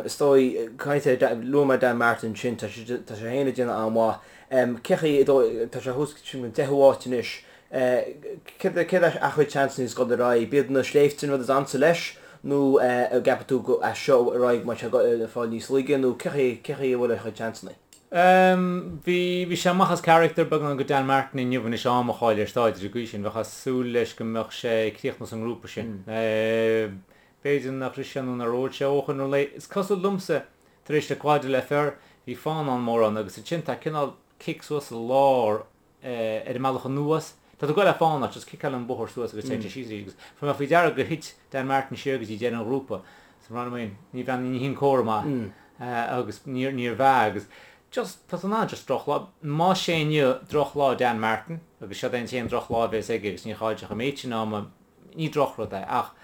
Is dóigh, caint ar, luaigh mé Dan Martin ansin, tá sé, tá sé féin ag déanamh an-mhaith. Cé chaoi, tá sé thuas sin an deichiú háit anois, Céard é a chuid seansanna ag dul ar aghaidh? B'iad na sléibhte an rud is ansa leis nó an gceapann tú go as seo ar aghaidh go mbeidh sé ag fáil níos laige nó cé chaoi cé chaoi a bhfuil a chuid seansanna? Bhí bhí sé amach as character beagán go Dan Martin inniu anois am a chailleadh ar stáid ar an gcaoi sin. Bheifeá ag súil leis go mbeadh sé ag críochnú sa ngrúpa sin. B'fhéidir nach rith sé nó nár ól sé ó chun an lae. Is cosúil liomsa tar éis Le Croix de l'Enfer bhí fánán mór ann agus ansin tá cineál cic suas sa lár ar an mbealach anuas. Tá tú ag goil le fána, just ciceálann an bóthar suas agus téann sé síos arís agus fuair mé faoi deara gur thit Dan Martin siar go dtí deireadh an ghrúpa. So mar I mean, ní bhean, ní hin comhartha maith agus níor, níorbh ea agus just, tá tú in ann just drochlá, más é inniu drochlá Dan Martin agus seod é an t-aon drochlá a bheas aige agus níor chaill sé an méid sin ama, Ní drochrud é, ach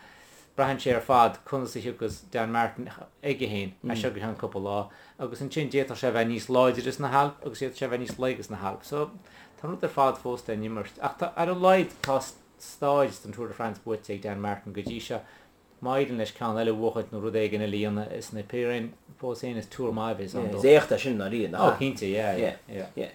braitheann sé ar fad conas a thiocfas Dan Martin aige féin as seo go ceann cúpla lá, agus ansin d'fhéadfadh sé a bheith níos láidre sna hAilp agus d'fhéadfadh sé a bheith níos laige sna hAilp. So, tá an rud ar fad fós le n-imirt. Ach tá, ar a laghad, tá stáid den Tour de France buaite ag Dan Martin go dtí seo. Má éiríonn leis ceann eile a bhuachaint nó rud éigin eile a dhéanamh is na Pyrénées fós féin is Tour maith a bheas ann dó. Is éacht é sin ndáiríre, nach ea? Ó cinnte, yeah, yeah, yeah. Yeah.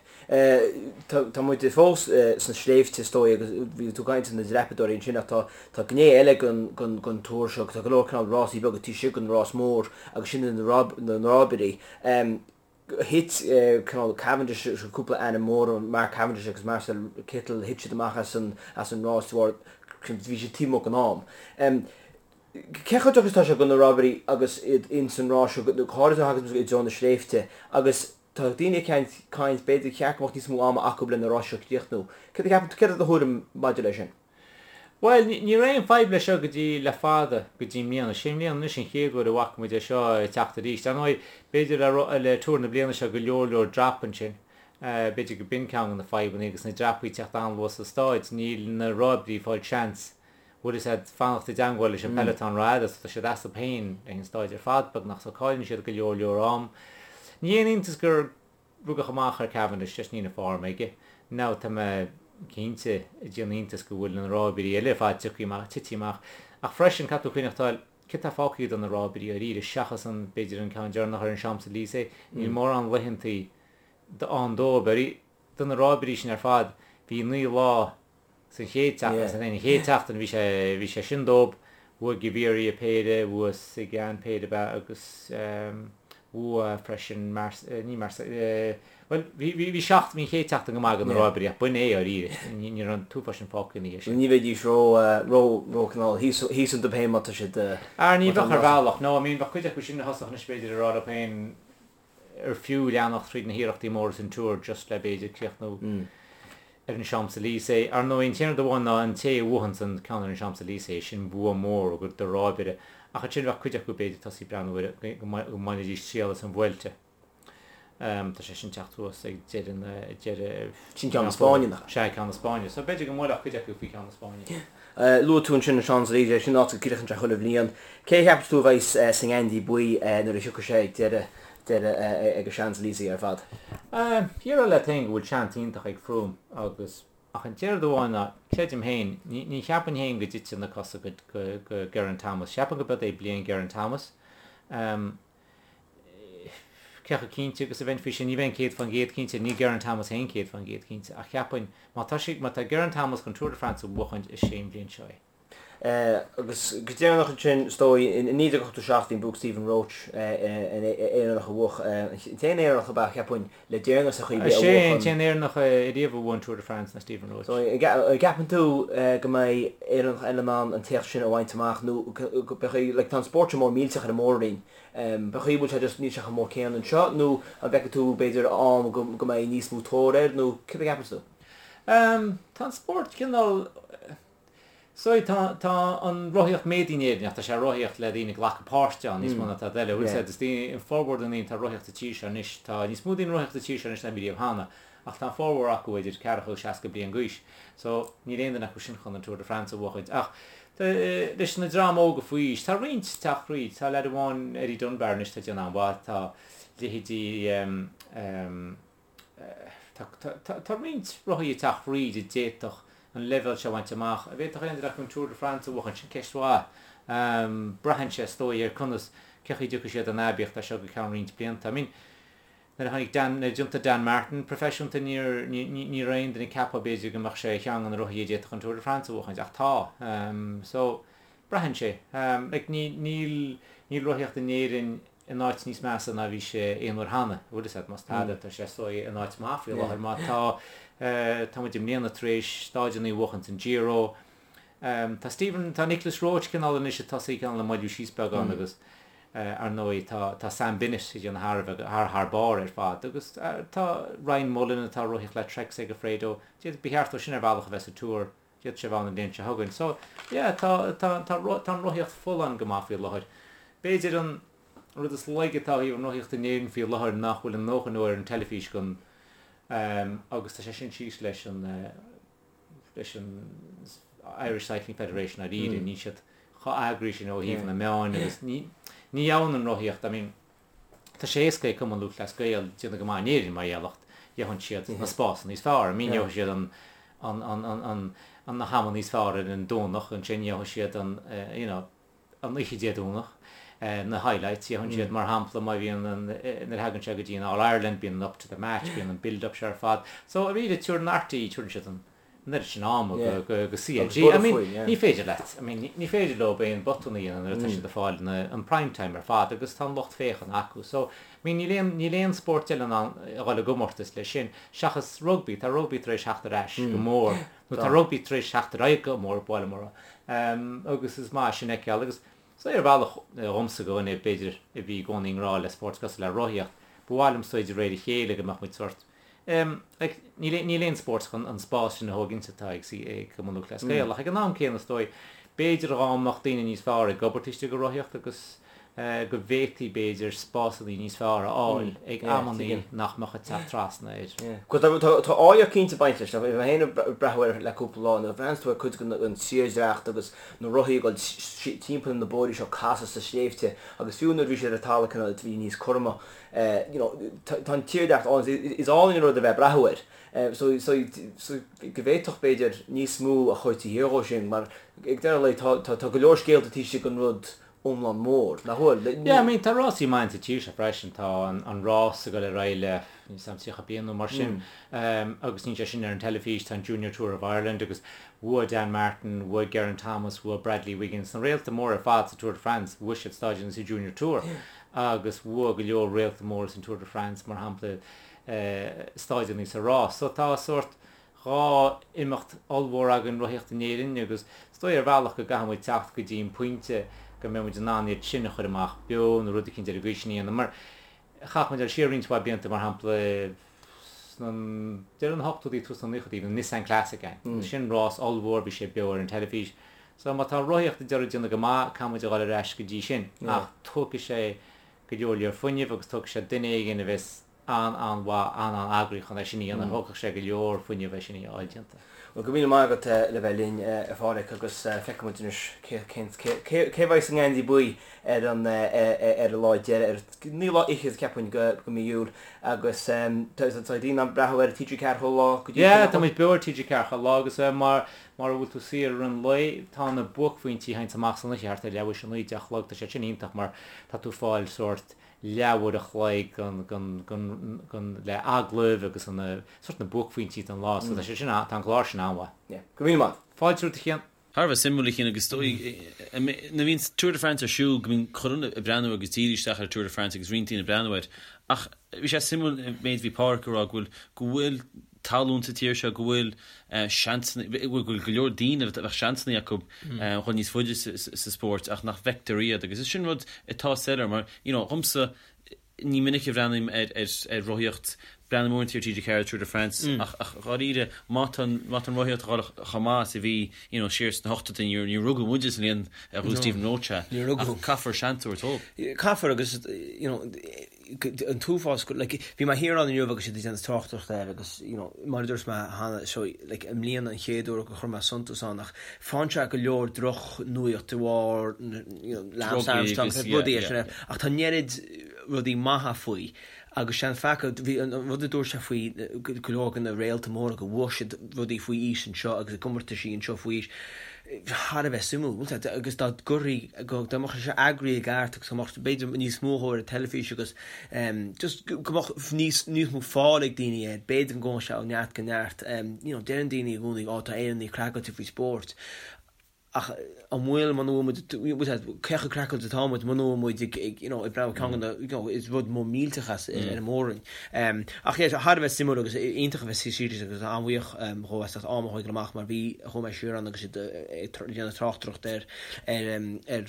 Tá muid fós sna sléibhte is dóigh agus bhí tú ag caint ar na dreapadóirí ansin ach tá tá gné eile den Tour seo, tá go leor cineál rásaí beaga taobh istigh den rás mór agus sin na ráibirí. Thit cineál Cavendish cúpla ainm mór, Mark Cavendish agus Marcel Kittel, thit siad amach as an as an rás de bharr bhí siad taobh amuigh den am. Cé chomh deacair is atá sé do na ráibirí agus iad ins an rás seo, go háirithe nuair a thagann i dtreo na sléibhte agus tá daoine ag caint b'fhéidir cheart go mbeadh níos mó ama acu le na ráis seo a chríochnú. Céard a cheapann tú, céard é do thuairim maidir leis sin? Bhuel, ní raibh aon fadhb leis seo go dtí le fada, go dtí i mbliana. Sé i mbliana anois an chéad uair a bhfaca muid é seo ag teacht arís. Ar ndóigh, b'fhéidir le le Tour na bliana seo go leor leor drap ansin. B'fhéidir go b'in ceann de na fadhbanna agus na dreapaí ag teacht an-luath sa stáid. Níl na ráibirí ag fáil seans, bhfuil fhios a'd, fanacht i dteangmháil leis an peloton rófhada so tá siad astu féin ag an stáid ar fad beagnach so cailleann siad go leor leor am. Ní haon iontas gur Rugadh amach ar Cavendish just níl an form aige. Now tá mé cinnte ag déanamh iontas go bhfuil na ráibirí eile ar fad tiocfaidh amach, titfidh amach. Ach freisin, caithfidh tú cuimhneachtáil, céard tá fágtha do na ráibirí dáiríre seachas an, b'fhéidir an ceann deireanach ar an Champs-Élysées, níl mórán laethantaí ann dóibh. Do na ráibirí sin ar fad, bhí 9 lá San chéad tseachtain, san an chéad tseachtain bhí sé, bhí sé sin dóibh, bhuaigh Gaviria péire, bhuaigh Sagan péire ab ea agus bhuaigh freisin Mars, ní Mars, bhuel bhí, bhí, bhí seacht, bhí an chéad tseachtain go maith do na ráibirí ach b'in é dáiríre, ní, ní raibh an t-uafás sin fágtha ina dhiaidh sin. Ní bheidís ró, ró, ró cineál thíos, thíos iontu féin má tá siad, Ar ní bheadh ar bhealach, no, I mean bheadh cuid acu sin a thosódh anois b'fhéidir ag rá leo féin, ar fiú leanacht tríd na hiarrachtaí móra san Tour just le b'fhéidir críochnú ar an Champs-Élysées. Ar ndóigh, an t-aon rud amháin ná an té a bhuachanns an ceann ar an Champs-Élysées, sin bua mór do ráibire. Ach ansin bheadh cuid acu b'fhéidir tosaí ag breathnú ar go mbainfidís triail as an Vuelta. Tá sé sin teacht thuas ag deireadh na, deireadh. Sin ceann na Spáinne, nach ea? Sea, ceann na Spáinne. So b'fhéidir go mbuailfeadh cuid acu faoi cheann na Spáinne. Luaigh tú ansin an Champs-Élysées, sin áit a gcríochnaíonn sé chuile bhliain. Cé a cheapas tú a bheas sa ngeansaí buí nuair a thiocfaidh sé ag deireadh deireadh ag an Champs-Élysées ar fad? Déarfá leat féin go bhfuil seans iontach ag Froome agus ach an rud amháin ná, creidim féin, ní ní cheapainn féin go dtitfidh na cosa go go Geraint Thomas. Cheapainn go b'iod é bliain Geraint Thomas. Cé chomh cinnte agus a bheinn faoi sin? Ní bheinn 100% cinnte, níl Geraint Thomas féin 100% cinnte, ach cheapfainn, má tá sé, má tá Geraint Thomas chun Tour de France a bhuachaint, is é an bhliain seo é. Agus go deireanach ansin, is dóigh, in 1987 bhí an buac Stephen Roche, an Éireannach a bhuach, an t-aon Éireannach ab ea, cheapfainn, le deireanas ar chaoi ar bith a Is é an t-aon Éireannach ariamh a bhuaigh an Tour de France ná Stephen Roche. So, an gceapann tú go mbeidh Éireannach eile in ann an t-éacht sin a bhaint amach nó beidh, like, tá an spórt seo mór millteach ar an mór-roinn, B'fhéidir go bhfuil sé just níl sé chomh mór céanna anseo nó an bhfeiceann tú b'fhéidir am go go mbeidh níos mó tóir air nó céard a cheapann tú? Tá an spórt cineál so tá tá an rothaíocht méadaithe in Éirinn ach tá sé rothaíocht le daoine ag glacadh páirte ann níos mó ná tada eile. Bhfuil fhios a'd is daoine formhór de na daoine atá ag rothaíocht sa tír seo anois tá níos mó daoine ag rothaíocht sa tír seo anois ná bhí riamh cheana ach tá an formhór acu idir ceathracha agus 60 bliain d'aois so níl aon duine acu sin chun an Tour de France a bhuachaint ach leis na dream óga faoi aois tá roinnt ag teacht thríd tá leaid amháin Eddie Dunbar anois tá ag déanamh an-mhaith tá leithéidí tá tá tá roinnt rothaí ag teacht thríd a d'fhéadfadh an leibhéal seo a bhaint amach an bhféadfadh aon duine acu an Tour de France a bhuachaint sin ceist mhaith braitheann sé is dóigh ar conas cén chaoi a dtiocfaidh siad in aibíocht as seo go ceann roinnt blianta I mean Nuair a tháinig Dan, nuair a d'iontaigh Dan Martin proifisiúnta níor, ní raibh aon duine ag ceapadh b'fhéidir go mbeadh sé ar cheann de na rothaithe a d'fhéadfadh an Tour de France a bhuachaint ach tá. So, braitheann sé. Like ní, níl, níl rothaíocht in Éirinn in áit níos measa ná bhí sé aon uair cheana, bhfuil fhios a'd, más tada tá sé is dóigh in áit maith faoi láthair má tá, tá muid i mbliana tar éis stáideanna a bhuachaint san Giro. Tá Stephen, tá Nicolas Roche cineál anois ag tosaí cineál ag moilliú síos beagán agus Ar ndóigh, tá Sam Bennett ag déanamh thar a bheith, thar thar barr ar fad agus tá Ryan Mullen atá ag rothaíocht le Trek Segafredo, d'fhéadfadh, ba cheart dó sin ar bhealach a bheith sa Tour, d'fhéadfadh sé a bheith ann an bhliain seo chugainn. So, yeah, tá, tá, tá, tá an rothaíocht folláin go maith faoi láthair. B'fhéidir an rud is laige atá ó thaobh an rothaíocht in Éirinn faoi láthair nach bhfuil a ndóthain uair ar an teilifís don, agus tá sé sin síos leis an, leis an Irish Cycling Federation dáiríre, níl siad chomh eagraithe sin ó thaobh na meáin agus ní ní gheobhann an rothaíocht, I mean tá sé éasca ag Cumann Lúthchleas Gael déanamh go maith in Éirinn mar gheall ach gheobhann siad na spásanna níos fearr, I mean gheobhaidh siad an an an an an na hama níos fearr ar an Domhnach ansin gheobhaidh siad an you know. an oíche Dé Domhnach, na highlights, fhéachann siad mar shampla má bhíonn an, nuair a thagann sé go dtí an All Ireland, bíonn an up to the match, bíonn an build up seo ar fad. So arís tabharann RTÉ, tabharann siad an an oiread sin ama go, go, go CLG. I mean, ní féidir leat, I mean, ní féidir leo aon botún a dhéanamh nuair atá siad ag fáil na, an prime time ar fad agus tá an lucht féachana acu. So, I mean, níl aon, níl aon spórt eile in ann a dhul i gcomórtas leis sin, seachas rugbaí. Tá rugbaí tar éis theacht ar ais go mór, nó tá rugbaí tar éis theacht ar aghaidh go mór, ba mhaith liom a rá. Agus is maith sin a fheiceáil agus so ar bhealach dhomsa go dhuine b'fhéidir a bhí i gcónaí i ngrá le spórt cosúil le rothaíocht, ba mhaith liom so de réir a chéile go mbeadh muid sórt like níl níl aon spórt chun an spás sin a thógaint atá ag ag Cumann Lúthchleas Gael ach ag an am céanna is dóigh b'fhéidir dhá mbeadh daoine níos fearr ag obair taobh istigh de rothaíocht agus go bhféadfaí b'fhéidir spásanna níos fearr a fháil ag amannaí nach mbeadh ag teacht trasna air. Tá áilleacht cinnte ag baint leis. Bhí mé féin ag breathnú air le cúpla lá, nuair a bhreathnaíonn tú ar cuid den tírdhreach agus na rothaí ag dul timpeall na bóithrí seo casadh sna sléibhte agus fiú nuair a bhí siad ar an talamh cineál bhí níos cothroime. You know, tá an tírdhreach álainn, is álainn an rud a bheith ag breathnú air. So, so, so go bhféadfadh b'fhéidir níos mó a chur taobh thiar dhó sin mar ag deireadh an lae tá, tá, tá go leor scéalta taobh istigh den rud iomlán mór, nach bhfuil? Yeah, I mean, tá rásaí maith sa tír seo freisin, tá an rás ag dul ar aghaidh le, níl 'fhios a'm, 30 bliain nó mar sin, agus níl sé sin ar an teilifís, tá an Junior Tour of Ireland agus bhuaigh Dan Martin, bhuaigh Geraint Thomas, bhuaigh Bradley Wiggins, na réalta móra ar fad sa Tour de France, bhuaigh siad stáideanna sa Junior Tour agus bhuaigh go leor réalta móra san Tour de France, mar shampla, stáideanna sa rás. So tá sórt 2 imeacht ollmhór againn rothaíocht in Éirinn agus is dóigh ar bhealach go gcaithfidh muid teacht go dtí an pointe go mbeidh muid in ann iad sin a chur amach beo nó rud eicínt ar an gcaoi sin a dhéanamh mar chaithfidh muid dul siar roinnt mhaith blianta mar shampla sna deireadh na hochtóidí tús na naochadaí bhí an Nissan Classic ann agus sin rás ollmhór bhí sé beo ar an teilifís so má tá rothaíocht ag d'iarraidh déanamh go maith caithfidh muid a dhul ar ais go dtí sin ach tógfaidh sé go leor leor fuinnimh agus tógfaidh sé duine éigin a bheas an-an-mhaith, an-an-eagraí chun é sin a dhéanamh. Thógfadh sé go leor fuinnimh é sin a fháil déanta. Bhuel, go raibh míle maith agat le bheith linn, a Pháraic, agus feicfidh muid anois cé cé a bheidh sa ngeansaí buí ar an ar an lá deiridh, ar naoú lá fhichead, ceapaim, de mhí Iúil. Agus tá daoine ag breathnú ar TG4 chuile lá go dtí sin, Yeah, tá muid beo ar TG4 chuile lá agus mura bhfuil tú saor i rith an lae, tá na buaicphointí a théanns amach san oíche thart ar leathuair théis a naoi, deich a chlog, tá sé sin iontach mar tá tú ag fáil sórt leathuair a chloig den le agallaimh agus an sórt na buaicphointí den lá so tá sé sin tá an clár sin an-mhaith. Yeah. Go raibh míle maith. Fáilte romhat a Chian. Thar a bheith suimiúil a Chian agus is dóigh nuair a bhíonn Tour de France ar siúl go mbíonn chuile dhuine ag breathnú agus díriú isteach ar Tour de France agus roinnt daoine ag breathnú air ach bhí sé suimiúil an méid a bhí Páraic ag rá go bhfuil go bhfuil tallann sa tír seo, go bhfuil seansanna, go bhfuil go leor daoine a bheadh seansanna acu dhul níos faide sa spórt ach nach bhfeictear iad agus is sin rud atá soiléir mar, you know, dhomsa, ní minic a bhreathnaím ar ar rothaíocht, breathnaím uaireanta ar TG4 Tour de France ach ach dháiríre má tá má tá an rothaíocht ag dul chomh maith is a bhí, you know, siar sna hochtóidí, níor níor rugadh muide sa bhliain a bhuaigh Stephen Roche ach caithfear seans a thabhairt dóibh. Caithfear agus, you know, an t-uafás go, like, bhí mé thiar ann inniu agus siad ag déanamh tráchtaireachta air agus, you know, mar a dúirt mé cheana, so, like, i mbliana an chéad uair gur chuir mé suntas ann ach faigheann sé go leor drochnuaíocht de bharr, you know, Lance Armstrong, rudaí sin, ach tá an oiread rudaí maithe faoi agus sé an faca, bhí an rud a dúirt sé faoi go leor de na réalta móra go bhfuair siad rudaí faoi aois anseo agus i gcomórtaisí anseo faoi aois, thar a bheith suimiúil, bhfuil a fhios agat, agus dá gcuirfí, dá mbeadh sé eagraithe i gceart agus go mbeadh b'fhéidir níos mó dhó ar an teilifís agus just go mbeadh níos, níos mó fáil ag daoine air, b'fhéidir go ngabhfadh sé ó neart go neart. You know, deireann daoine i gcónaí, ó tá Éireannaigh craiceáilte faoi spórt. Ach an bhfuil, muna bhfuil muid, bhfuil a fhios agat, cé chomh craiceáilte atá muid muna bhfuil muid ag, ag, you know, ag breathnú ceann de na, you know, is rud mór millteach as ar an mór-roinn. Ach yeah, thar a bheith suimiúil agus iontach a bheith serious agus an-bhuíoch dhó as ucht am a thógáil amach mar bhí, chuaigh mé siar ann agus iad ag déanamh tráchtaireacht ar ar ar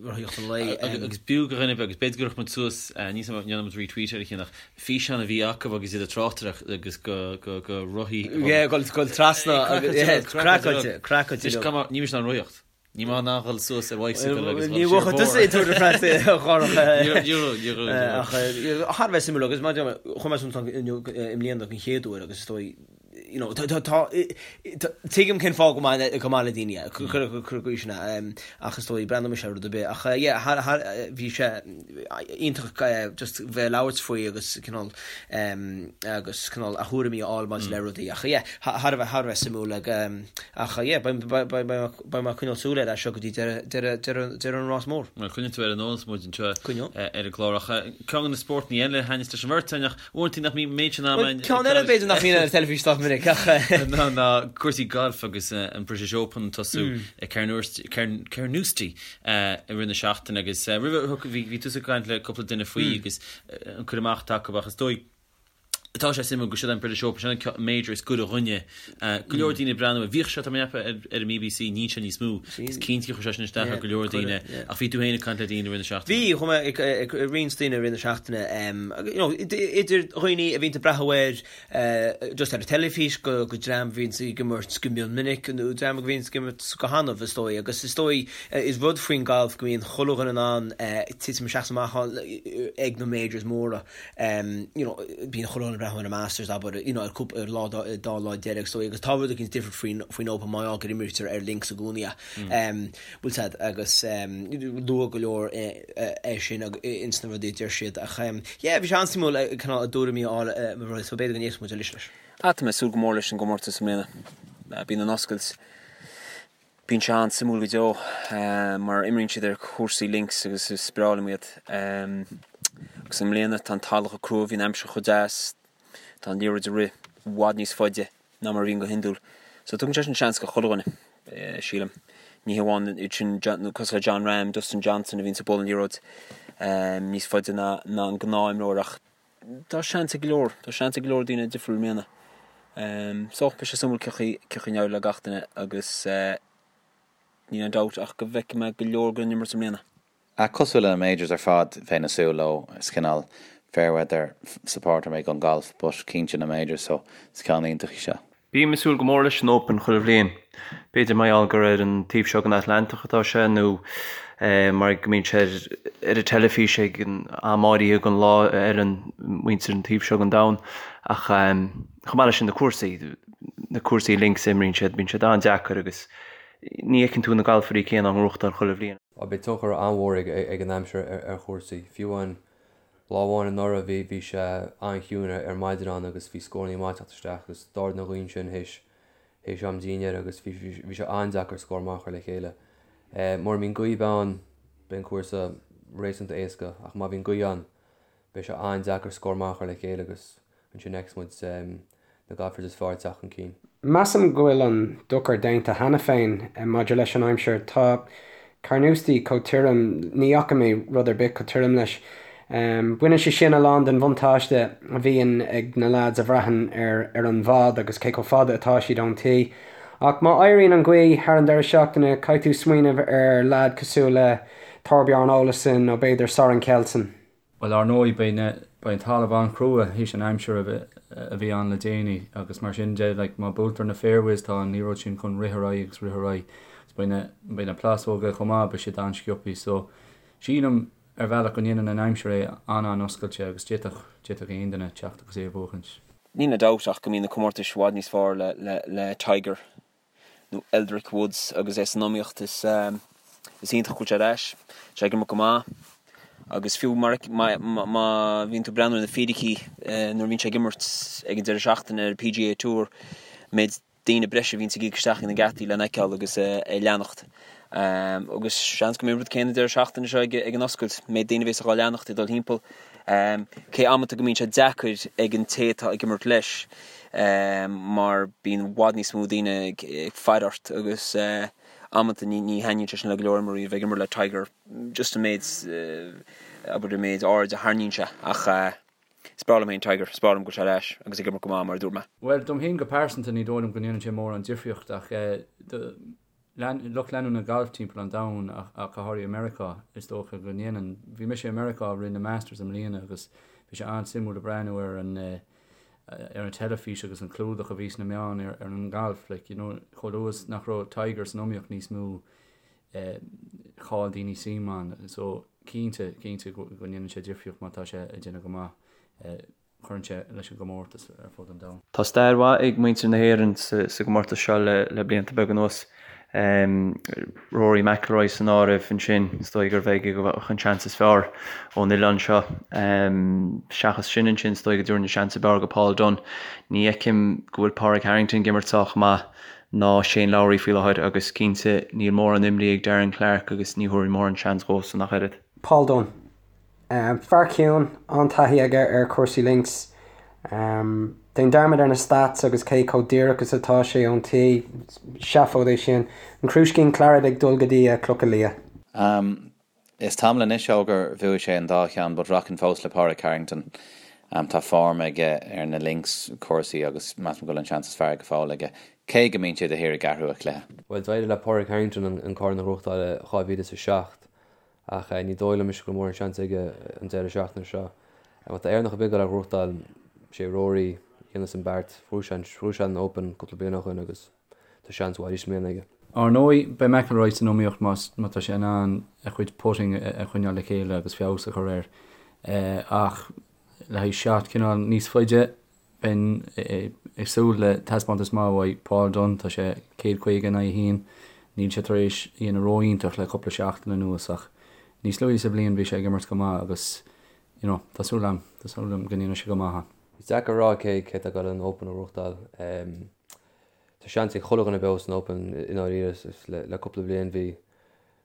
rothaíocht an lae. Agus b'fhiú do dhuine agus b'fhéidir go gcuirfeadh muid suas, níl 's agam an ndéanfaidh muid retweet ar a chinn ach físeán a bhí acu agus iad ag tráchtaireacht agus go go go rothaí Yeah, gabháil gabháil trasna agus yeah, craiceáilte, craiceáilte. Anois, níl mise in ann rothaíocht. Ní maith ná dhul suas ar bicycle agus dhul Ní siar bhfuair tusa i Tour de France a Dhárach. Ní raibh, ní raibh, ní raibh. Ach thar a bheith suimiúil agus mar a deir mé, chuir mé suim inniu i mbliana den chéad uair agus is dóigh. you know, tá, tá, tuigim cén fáth go maith, go maith le daoine é, cuir, cuir, cuir go sin é, ach is dóigh, breathnóidh mise ar rud ar bith, ach yeah, thar, thar, bhí sé iontach just bheith ag labhairt faoi agus cineál, agus cineál a thuairimí a fháil maidir le rudaí, ach yeah, thar a bheith, thar a bheith suimiúil ag, ach yeah, beidh, beidh, beidh, beidh mé ag coinneáil súil air as seo go dtí deireadh, deireadh, deireadh, deireadh an rás mór. Bhuel, coinneoidh tú ar an eolas muid anseo ar an gclár, ach ceann de na spórtanna eile a thaitníos leis an bheirt againn, ach Uaireanta nach mbíonn méid sin ama Bhuel, ceann eile b'fhéidir nach mbíonn ar an teilifís sách minic ach. ná ná cúrsaí gailf agus an British Open ag tosú i Carnoustie i rith na seachtaine agus roimhe bhí bhí tusa ag caint le cúpla duine faoi agus an cur amach atá acu ach is dóigh tá sé suimiúil go siod an British Open sin an major is gaire dhúinne. Go leor daoine ag breathnú air. Bhíodh sé tá mé ag ceapadh ar an mBBC níl sé níos mó. Is cinnte gur chuir sé sin isteach ar go leor daoine ach bhí tú féin ag caint le daoine i rith na seachtaine. Bhí, chuaigh mé ag roinnt daoine i rith na seachtaine, you know, idir dhaoine a bhíonn ag breathnú air just ar an teilifís go go dream a bhíonn ag imirt go mion minic nó dream a bhíonn ag imirt go hannamh is dóigh agus is dóigh is rud faoin galf go mbíonn chuile dhuine in ann titim isteach is amach ag na majors móra. you know, bíonn chuile dhuine ag breathnú ar an Masters, abair, you know, ar cúpla, ar lá, dá lá deiridh agus dóigh, agus tá rud éicint difriúil faoin, faoin Open mar gheall gur imrítear ar links i gcónaí é. Bhfuil 's a'd, agus luadh go leor é sin ins na rudaí a deir siad ach yeah, bhí sé an-suimiúil cineál a dtuairimí a fháil mar rud, so b'fhéidir go n-éistfidh muid arís leis. Ah, tá mé ag súil go mór leis an gcomórtas i mbliana. Bíonn an oscailt. Bíonn sé an-suimiúil go deo mar imríonn siad ar chúrsaí links agus is breá liom iad. Agus i mbliana tá an talamh chomh crua, bhí an aimsir chomh deas, tá an liathróid ag rith i bhfad níos faide ná mar a bhíonn go hiondúil. So tugann sé sin seans go chuile dhuine, sílim. Ní hamháin iad sin cosúil le Jon Rahm, Dustin Johnson a bhíonns ag bualadh an liathróid níos faide ná an gnáth-imreoir ach Tá seans ag go leor, tá seans ag go leor daoine difriúil i mbliana. So, beidh sé suimiúil cén chaoi, cén chaoi a n-éireoidh le gach duine agus níl aon dabht ach go bhfeicfidh mé go leor den imirt i mbliana. Ach cosúil le na majors ar fad, bheinn ag súil leo, is cineál fair weather supporter mé don golf but cinnte na majors so is ceann iontach í seo. Bím ag súil go mór leis an Open chuile bhliain. B'fhéidir mar gheall gur ar an taobh seo den Atlantach atá sé nó mar go mbíonn sé ar an teilifís ag an am áirithe den lá a fheileann muintir an taobh seo den domhan. Ach chomh maith leis sin na cúrsaí, na cúrsaí links a imríonn siad, bíonn siad an-deacair agus ní fheiceann tú na galfairí céanna á ngnóthachtáil chuile bhliain. Beidh tionchar an-mhór ag an aimsir ar chúrsaí. Fiú amháin Lá amháin anuraidh bhí bhí sé an-chiúin ar maidin ann agus bhí scórannaí maith ag teacht isteach agus d'ardaigh an ghaoth ansin théis théis am dinnéir agus bhí bhí sé an-deacair scór maith a chur le chéile. Mura mbíonn gaoth ann beidh an cúrsa réasúnta éasca ach má bhíonn gaoth ann beidh sé an-deacair scór maith a chur le chéile agus ansin feicfidh muid na golfers is fearr ag teacht chun cinn. Measaim go bhfuil an dochar déanta cheana féin maidir leis an aimsir. Tá Carnoustie chomh tirim, ní fhaca mé rud ar bith chomh tirim leis. Baineann sé sin a lán den bhuntáiste a bhíonn ag na leaids a bhraitheann ar ar an bhfad agus cé chomh fada atá siad ón tee. Ach má éiríonn an ghaoth thar an deireadh seachtaine, caithfidh tú smaoineamh ar leaid cosúil le Thorbjorn Olesen nó b'fhéidir Soren Kjeldsen. Bhuel, ar ndóigh, beidh na, beidh an talamh an-chrua théis an aimsir a bhí, a bhí ann le déanaí agus mar sin de, like, má buailtear na fairways tá an liathróid sin chun rith ar aghaidh agus rith ar aghaidh agus beidh na, beidh na plásóga chomh maith, beidh siad an-sciobthaí. So, sílim ar bhealach go ndéanann an aimsir é an-an-oscailte agus d'fhéadfadh, d'fhéadfadh aon duine teacht agus é a bhuachaint. Níl aon dabht ach go mbíonn na comórtais i bhfad níos fearr le, le, le Tiger. nó Eldrick Woods agus é san iomaíocht. Is is iontach go bhfuil sé ar ais. Tá sé ag imirt go maith agus fiú mar má má bhíonn tú ag breathnú ar na fíricí nuair a bhíonn sé ag imirt ag an deireadh seachtaine ar an PGA Tour, méid daoine breise a bhíonns ag íoc isteach ag na geataí lena fheiceáil agus é leanacht. Agus seans go mbeidh an rud céanna an deireadh seachtaine seo ag an oscailt, méid daoine a bhéas á leanacht ag dul thimpeall. Cé amanta go mbíonn sé deacair ag an té atá ag imirt leis mar bíonn i bhfad níos mó daoine ag faire ort agus amanta ní thaitníonn sé sin le go leor imreoirí a bheith ag imirt le Tiger just an méid, abair an méid aird a tharraingíonn sé ach is breá liom féin Tiger, is breá liom go bhfuil sé ar ais agus ag imirt go maith mar a dúirt mé. Bhuel, dom féin go pearsanta ní dóigh liom go ndéanann sé mórán difríocht ach do lucht leanúna gailf timpeall an domhain ach go háirithe i Meiriceá, is dócha go ndéanann. Bhí mise i Meiriceá i rith na Masters i mbliana agus bhí sé an-suimiúil ag breathnú ar an ar an teilifís agus an clúdach a bhí sna meáin ar ar an ngalf. Like, you know, chomh luath is nach raibh Tiger san iomaíocht níos mó eh, chaill daoine suim ann. So, cinnte, cinnte go ndéanann sé difríocht má tá sé ag déanamh go maith. Eh, Cuireann sé leis an gcomórtas ar fud an domhain. Tá stair mhaith ag muintir na hÉireann sa gcomórtas seo le blianta beaga anuas. Rory McIlroy san áireamh ansin, is dóigh gurbh aige a bheadh an seans is fearr ón oileán seo. Seachas sin ansin, is dóigh go dtabharfainn an seans ab fhearr go Paul Dunne. Ní fheicim go bhfuil Pádraig Harrington ag imirt sách maith ná Shane Lowry faoi láthair agus cinnte níl mórán imní ag Darren Clarke agus ní thabharfainn mórán seans dhósan ach oiread. Paul Dunne. Fear ciúin, an-taithí aige ar chúrsaí links. Déan dearmad ar na stats agus cé chomh díreach is atá sé ón tee, seafóid é sin. An crúiscín claret ag dul go dtí a chlocha liath. Is tamall anois ó gur bhuaigh sé an dá cheann but rachainn fós le Pádraig Harrington. Tá form aige ar na links cúrsaí agus measaim go bhfuil an seans is fearr go fóill aige, cé go mbíonn sé de shíor ag athrú a chluiche. Bhuel, d'éirigh le Pádraig Harrington an corn a ghnóthachtáil i 2007 Ach ní dóigh liom go bhfuil mórán seans aige an deireadh seachtaine seo. Má tá Éireannach ar bith ag dul a ghnóthachtáil, sé Rory a dhéanfas an beart. Bhuaigh sé an, bhuaigh sé an Open cúpla bliain ó shoin agus tá seans mhaith arís i mbliana aige. Ar ndóigh, beidh McIlroy san iomaíocht más, má tá sé in ann a chuid putting a choinneáil le chéile agus feabhas a chur air. Ach le haghaidh shot cineál níos faide, Bheinn ag súil le taispeántas maith uaidh Paul Dunne, tá sé 150 in aghaidh 1. Níl sé tar éis a dhéanamh ró-iontach le cúpla seachtain anuas ach níos luaithe sa bhliain bhí sé ag imirt go maith agus you know tá súil agam, tá súil agam go ndéanfaidh sé go maith ann. Is deacair a rá cé cé atá ag dul an Open a ghnóthachtáil. Tá seans ag chuile dhuine beo san Open i ndáiríre le cúpla bliain bhí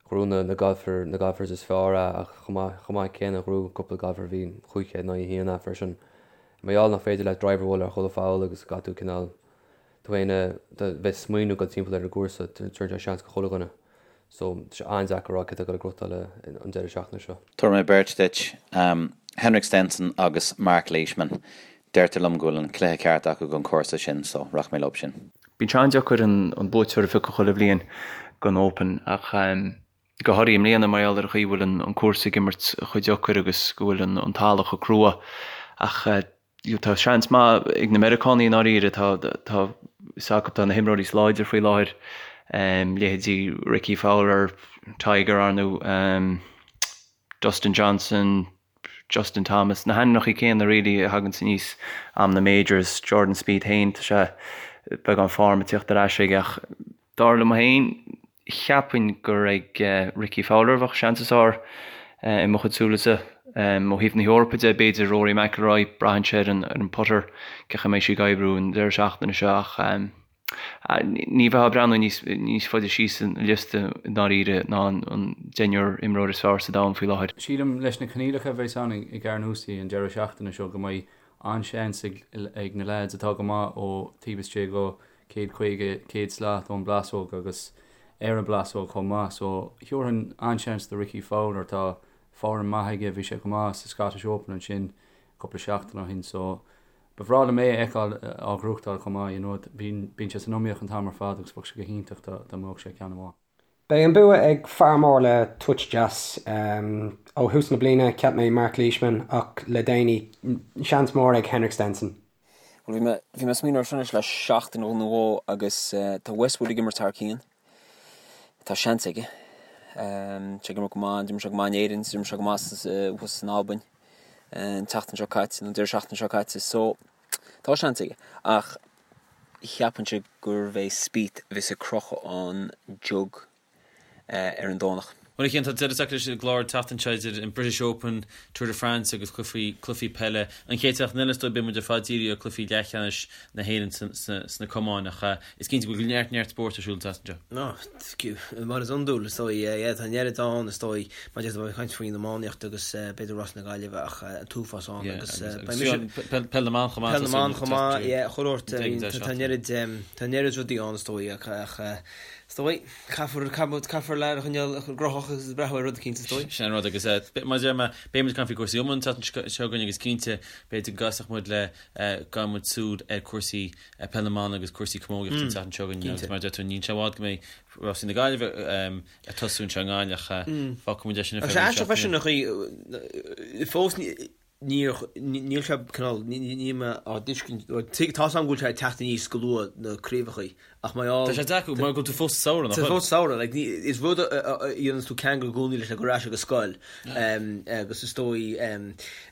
Ghnóthaigh na na golfer na golfers is fearr é ach chomh maith chomh maith céanna ghnóthaigh cúpla golfer a bhí 500 in aghaidh 1 é freisin. Mar gheall nach féidir leat driver a bhualadh ar chuile pholl agus caithfidh tú cineál tú féin a bheith ag smaoineamh dul timpeall ar an gcúrsa tabharann sé seans go chuile dhuine. So tá sé an-deacair a rá cé atá ag dul a ghnóthachtáil an deireadh seachtaine seo. Tabharfaidh mé beirt duit, Henrik Stenson agus Mark Leishman. Deirtear liom go bhfuil an cluiche ceart acu don chúrsa sin so rachaidh mé leo sin. Bíonn sé an-deacair an buaiteoir a phiocadh chuile bhliain don Open ach go háirithe i mbliana mar gheall ar an chaoi a bhfuil an cúrsa ag imirt chomh deacair agus go bhfuil an talamh chomh crua. Ach tá seans maith ag na Meiriceánaigh i ndáiríre, tá tá fhios acu tá na himreoirí is láidre faoi láthair, leithéidí Rickie Fowler, Tiger ar ndóigh, Dustin Johnson, Justin Thomas, na hainmneacha céanna really a thaganns aníos am na Majors, Jordan Spieth féin, tá sé beagán form ag tíocht ar ais aige ach dar liom féin, cheapfainn gur ag Rickie Fowler a bheadh seans is fearr i mo chuid súilese. Ó thaobh na hEorpa de, b'fhéidir Rory McIlroy, braitheann sé ar an putter, cén chaoi a mbeidh sé ag oibriú an deireadh seachtaine seo ach Ní bheifeá ag breathnú níos faide síos an liosta i ndáiríre ná an deichniúr imreoir is fearr sa domhan faoi láthair. Sílim, leis na coinníollacha a bheas ann i gCarnoustie an deireadh seachtaine seo, go mbeidh an-seans ag na leaids atá go maith ó taobh istigh go 150, 100 slat ón bplásóg agus ar an bplásóg chomh maith. So, thiúrfainn an-seans do Rickie Fowler. Tá form maith aige, bhí sé go maith sa Scottish Open ansin cúpla seachtain ó shin. So, Ba bhreá liom é a fheiceáil á ghnóthachtáil chomh maith, you know, bíonn sé san iomaíocht an t-am ar fad agus bheadh sé go hiontach dá mbuafadh sé ceann amháin. Beidh an bua ag fear mór le touch deas. Ó thús na bliana, cheap mé Mark Leishman ach le déanaí, seans mór ag Henrik Stenson. Bhuel, bhí mé, bhí mé ag smaoineamh air seo anois le seachtain nó dhó agus tá Westwood ag imirt thar cionn. Tá seans aige. Tá sé ag imirt go maith, d'imir sé go maith in Éirinn, d'imir sé go maith thuas in Albain an tseachtain seo caite, nó an deireadh seachtaine seo caite, so tá seans aige. Ach cheapfainnse gurbh é Spieth a bheas ag crochadh an jug ar an Domhnach. Bhuel, a Chian, tá deireadh tagtha leis an gclár an tseachtain seo idir an British Open, Tour de France agus cluichí, cluichí peile. An chéad seachtain eile is dóigh beidh muid ar fad dírithe ar cluichí leathcheannais na hÉireann sna camáin ach is cinnte go bhfuil neart neart spóirt ar siúl an tseachtain seo. Mar is iondúil, is dóigh, yeah, tá an oiread ann, is dóigh, mar a déarfá, ag caint faoin iománaíocht agus b'fhéidir Rás na Gaillimhe ach an t-uafás ann agus beidh mise... Peil na mBan chomh maith. Peil na mBan chomh maith, yeah, chuile shórt, tá an oiread, tá an oiread rudaí ann is dóigh ach is dóigh. Caithfear, caithfear lear a choinneáil gnóthach agus breathnú ar rud eicínt, is dóigh. Sin an rud agus mar a deir mé, beidh muid ag caint faoi cúrsaí iomána an tseachtain seo chugainn agus cinnte, b'fhéidir go gcasfadh muid le, gabhfaidh muid súil ar cúrsaí peil na mban agus cúrsaí camógaíochta an tseachtain seo chugainn agus mar a deir tú, níl sé i bhfad go mbeidh rásaí na Gaillimhe ag tosú anseo i nGaillimh ach fágfaidh muid é sin ar feadh roinnt seachtainí. Agus aisteach freisin an chaoi, fós ní. Níor, níl sé cineál, níl mé á dtuiscint, tá 's agam go bhfuil sé ag teacht aníos go luath na craobhachaí ach mar gheall. Tá sé deacair mar go bhfuil tú fós sa samhradh, nach bhfuil? Tá fós sa samhradh, like, ní, is rud a dhéananns tú ceangal i gcónaí leis ag dul ar ais ag an scoil agus is dóigh,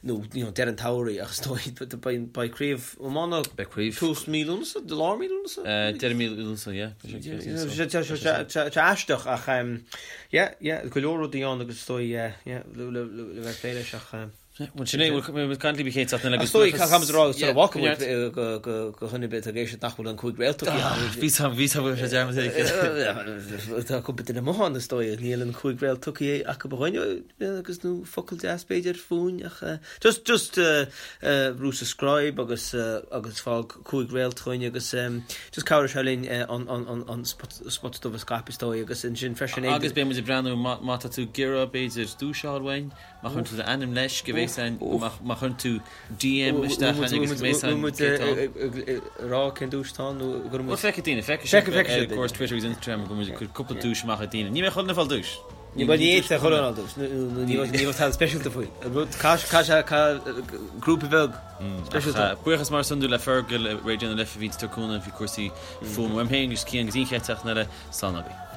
nó, you know, deireadh an tsamhraidh ach is dóigh, beidh, beidh craobh iomána, Beidh craobh. tús mí Lúnasa, lár mí Lúnasa? Deireadh mí Lúnasa, yeah. Tá sé aisteach ach, yeah, yeah, go leor rudaí ann agus is dóigh, yeah, yeah, le, le, le bheith ag plé leis ach. Bhuel sin é, bhfuil muid caint libh an chéad seachtain eile agus buíochas. Caithfidh muid a rá sula bhfágfaidh muid go dhuine ar bith atá ag éisteacht nach bhfuil an 5 réalt tugtha acu. Bhí sam, bhí sam, bhí sé dearmad aige. Tá cúpla duine amuigh ann is dóigh, níl an 5 réalt tugtha acu a dhuine agus nó focal deas b'fhéidir fúinn ach just, just brú subscribe agus agus fág 5 réalt chugainn agus just cabhróidh sé linn an an an spota dubh a scaipeadh is dóigh agus ansin freisin. Agus beidh muid ag breathnú má tá tú ag iarraidh b'fhéidir duais a fháil uainn. Má chuireann tú d'ainm leis, go mbeidh san, má chuireann tú DM isteach againn agus go mbeidh san Bhfuil muid ag rá cén duais atá ann nó go bhfuil muid. Bhuel feicfidh daoine, feicfidh siad ar cúrsaí Twitter agus Instagram go bhfuil muid ag cur cúpla duais amach ag daoine. Ní mbeidh chuile dhuine ag fáil duais. Ní bheidh ní fhéadfadh chuile dhuine fáil duais nó ní bheadh tada speisialta faoi. Caith sé grúpa beag speisialta. Buíochas mar is iondúil le Fergal i Raidió na Life a bhí ag tabhairt cúnamh faoi cúrsaí fuaime. Uaim féin agus Cian go dtí an chéad tseachtain eile, slán agaibh.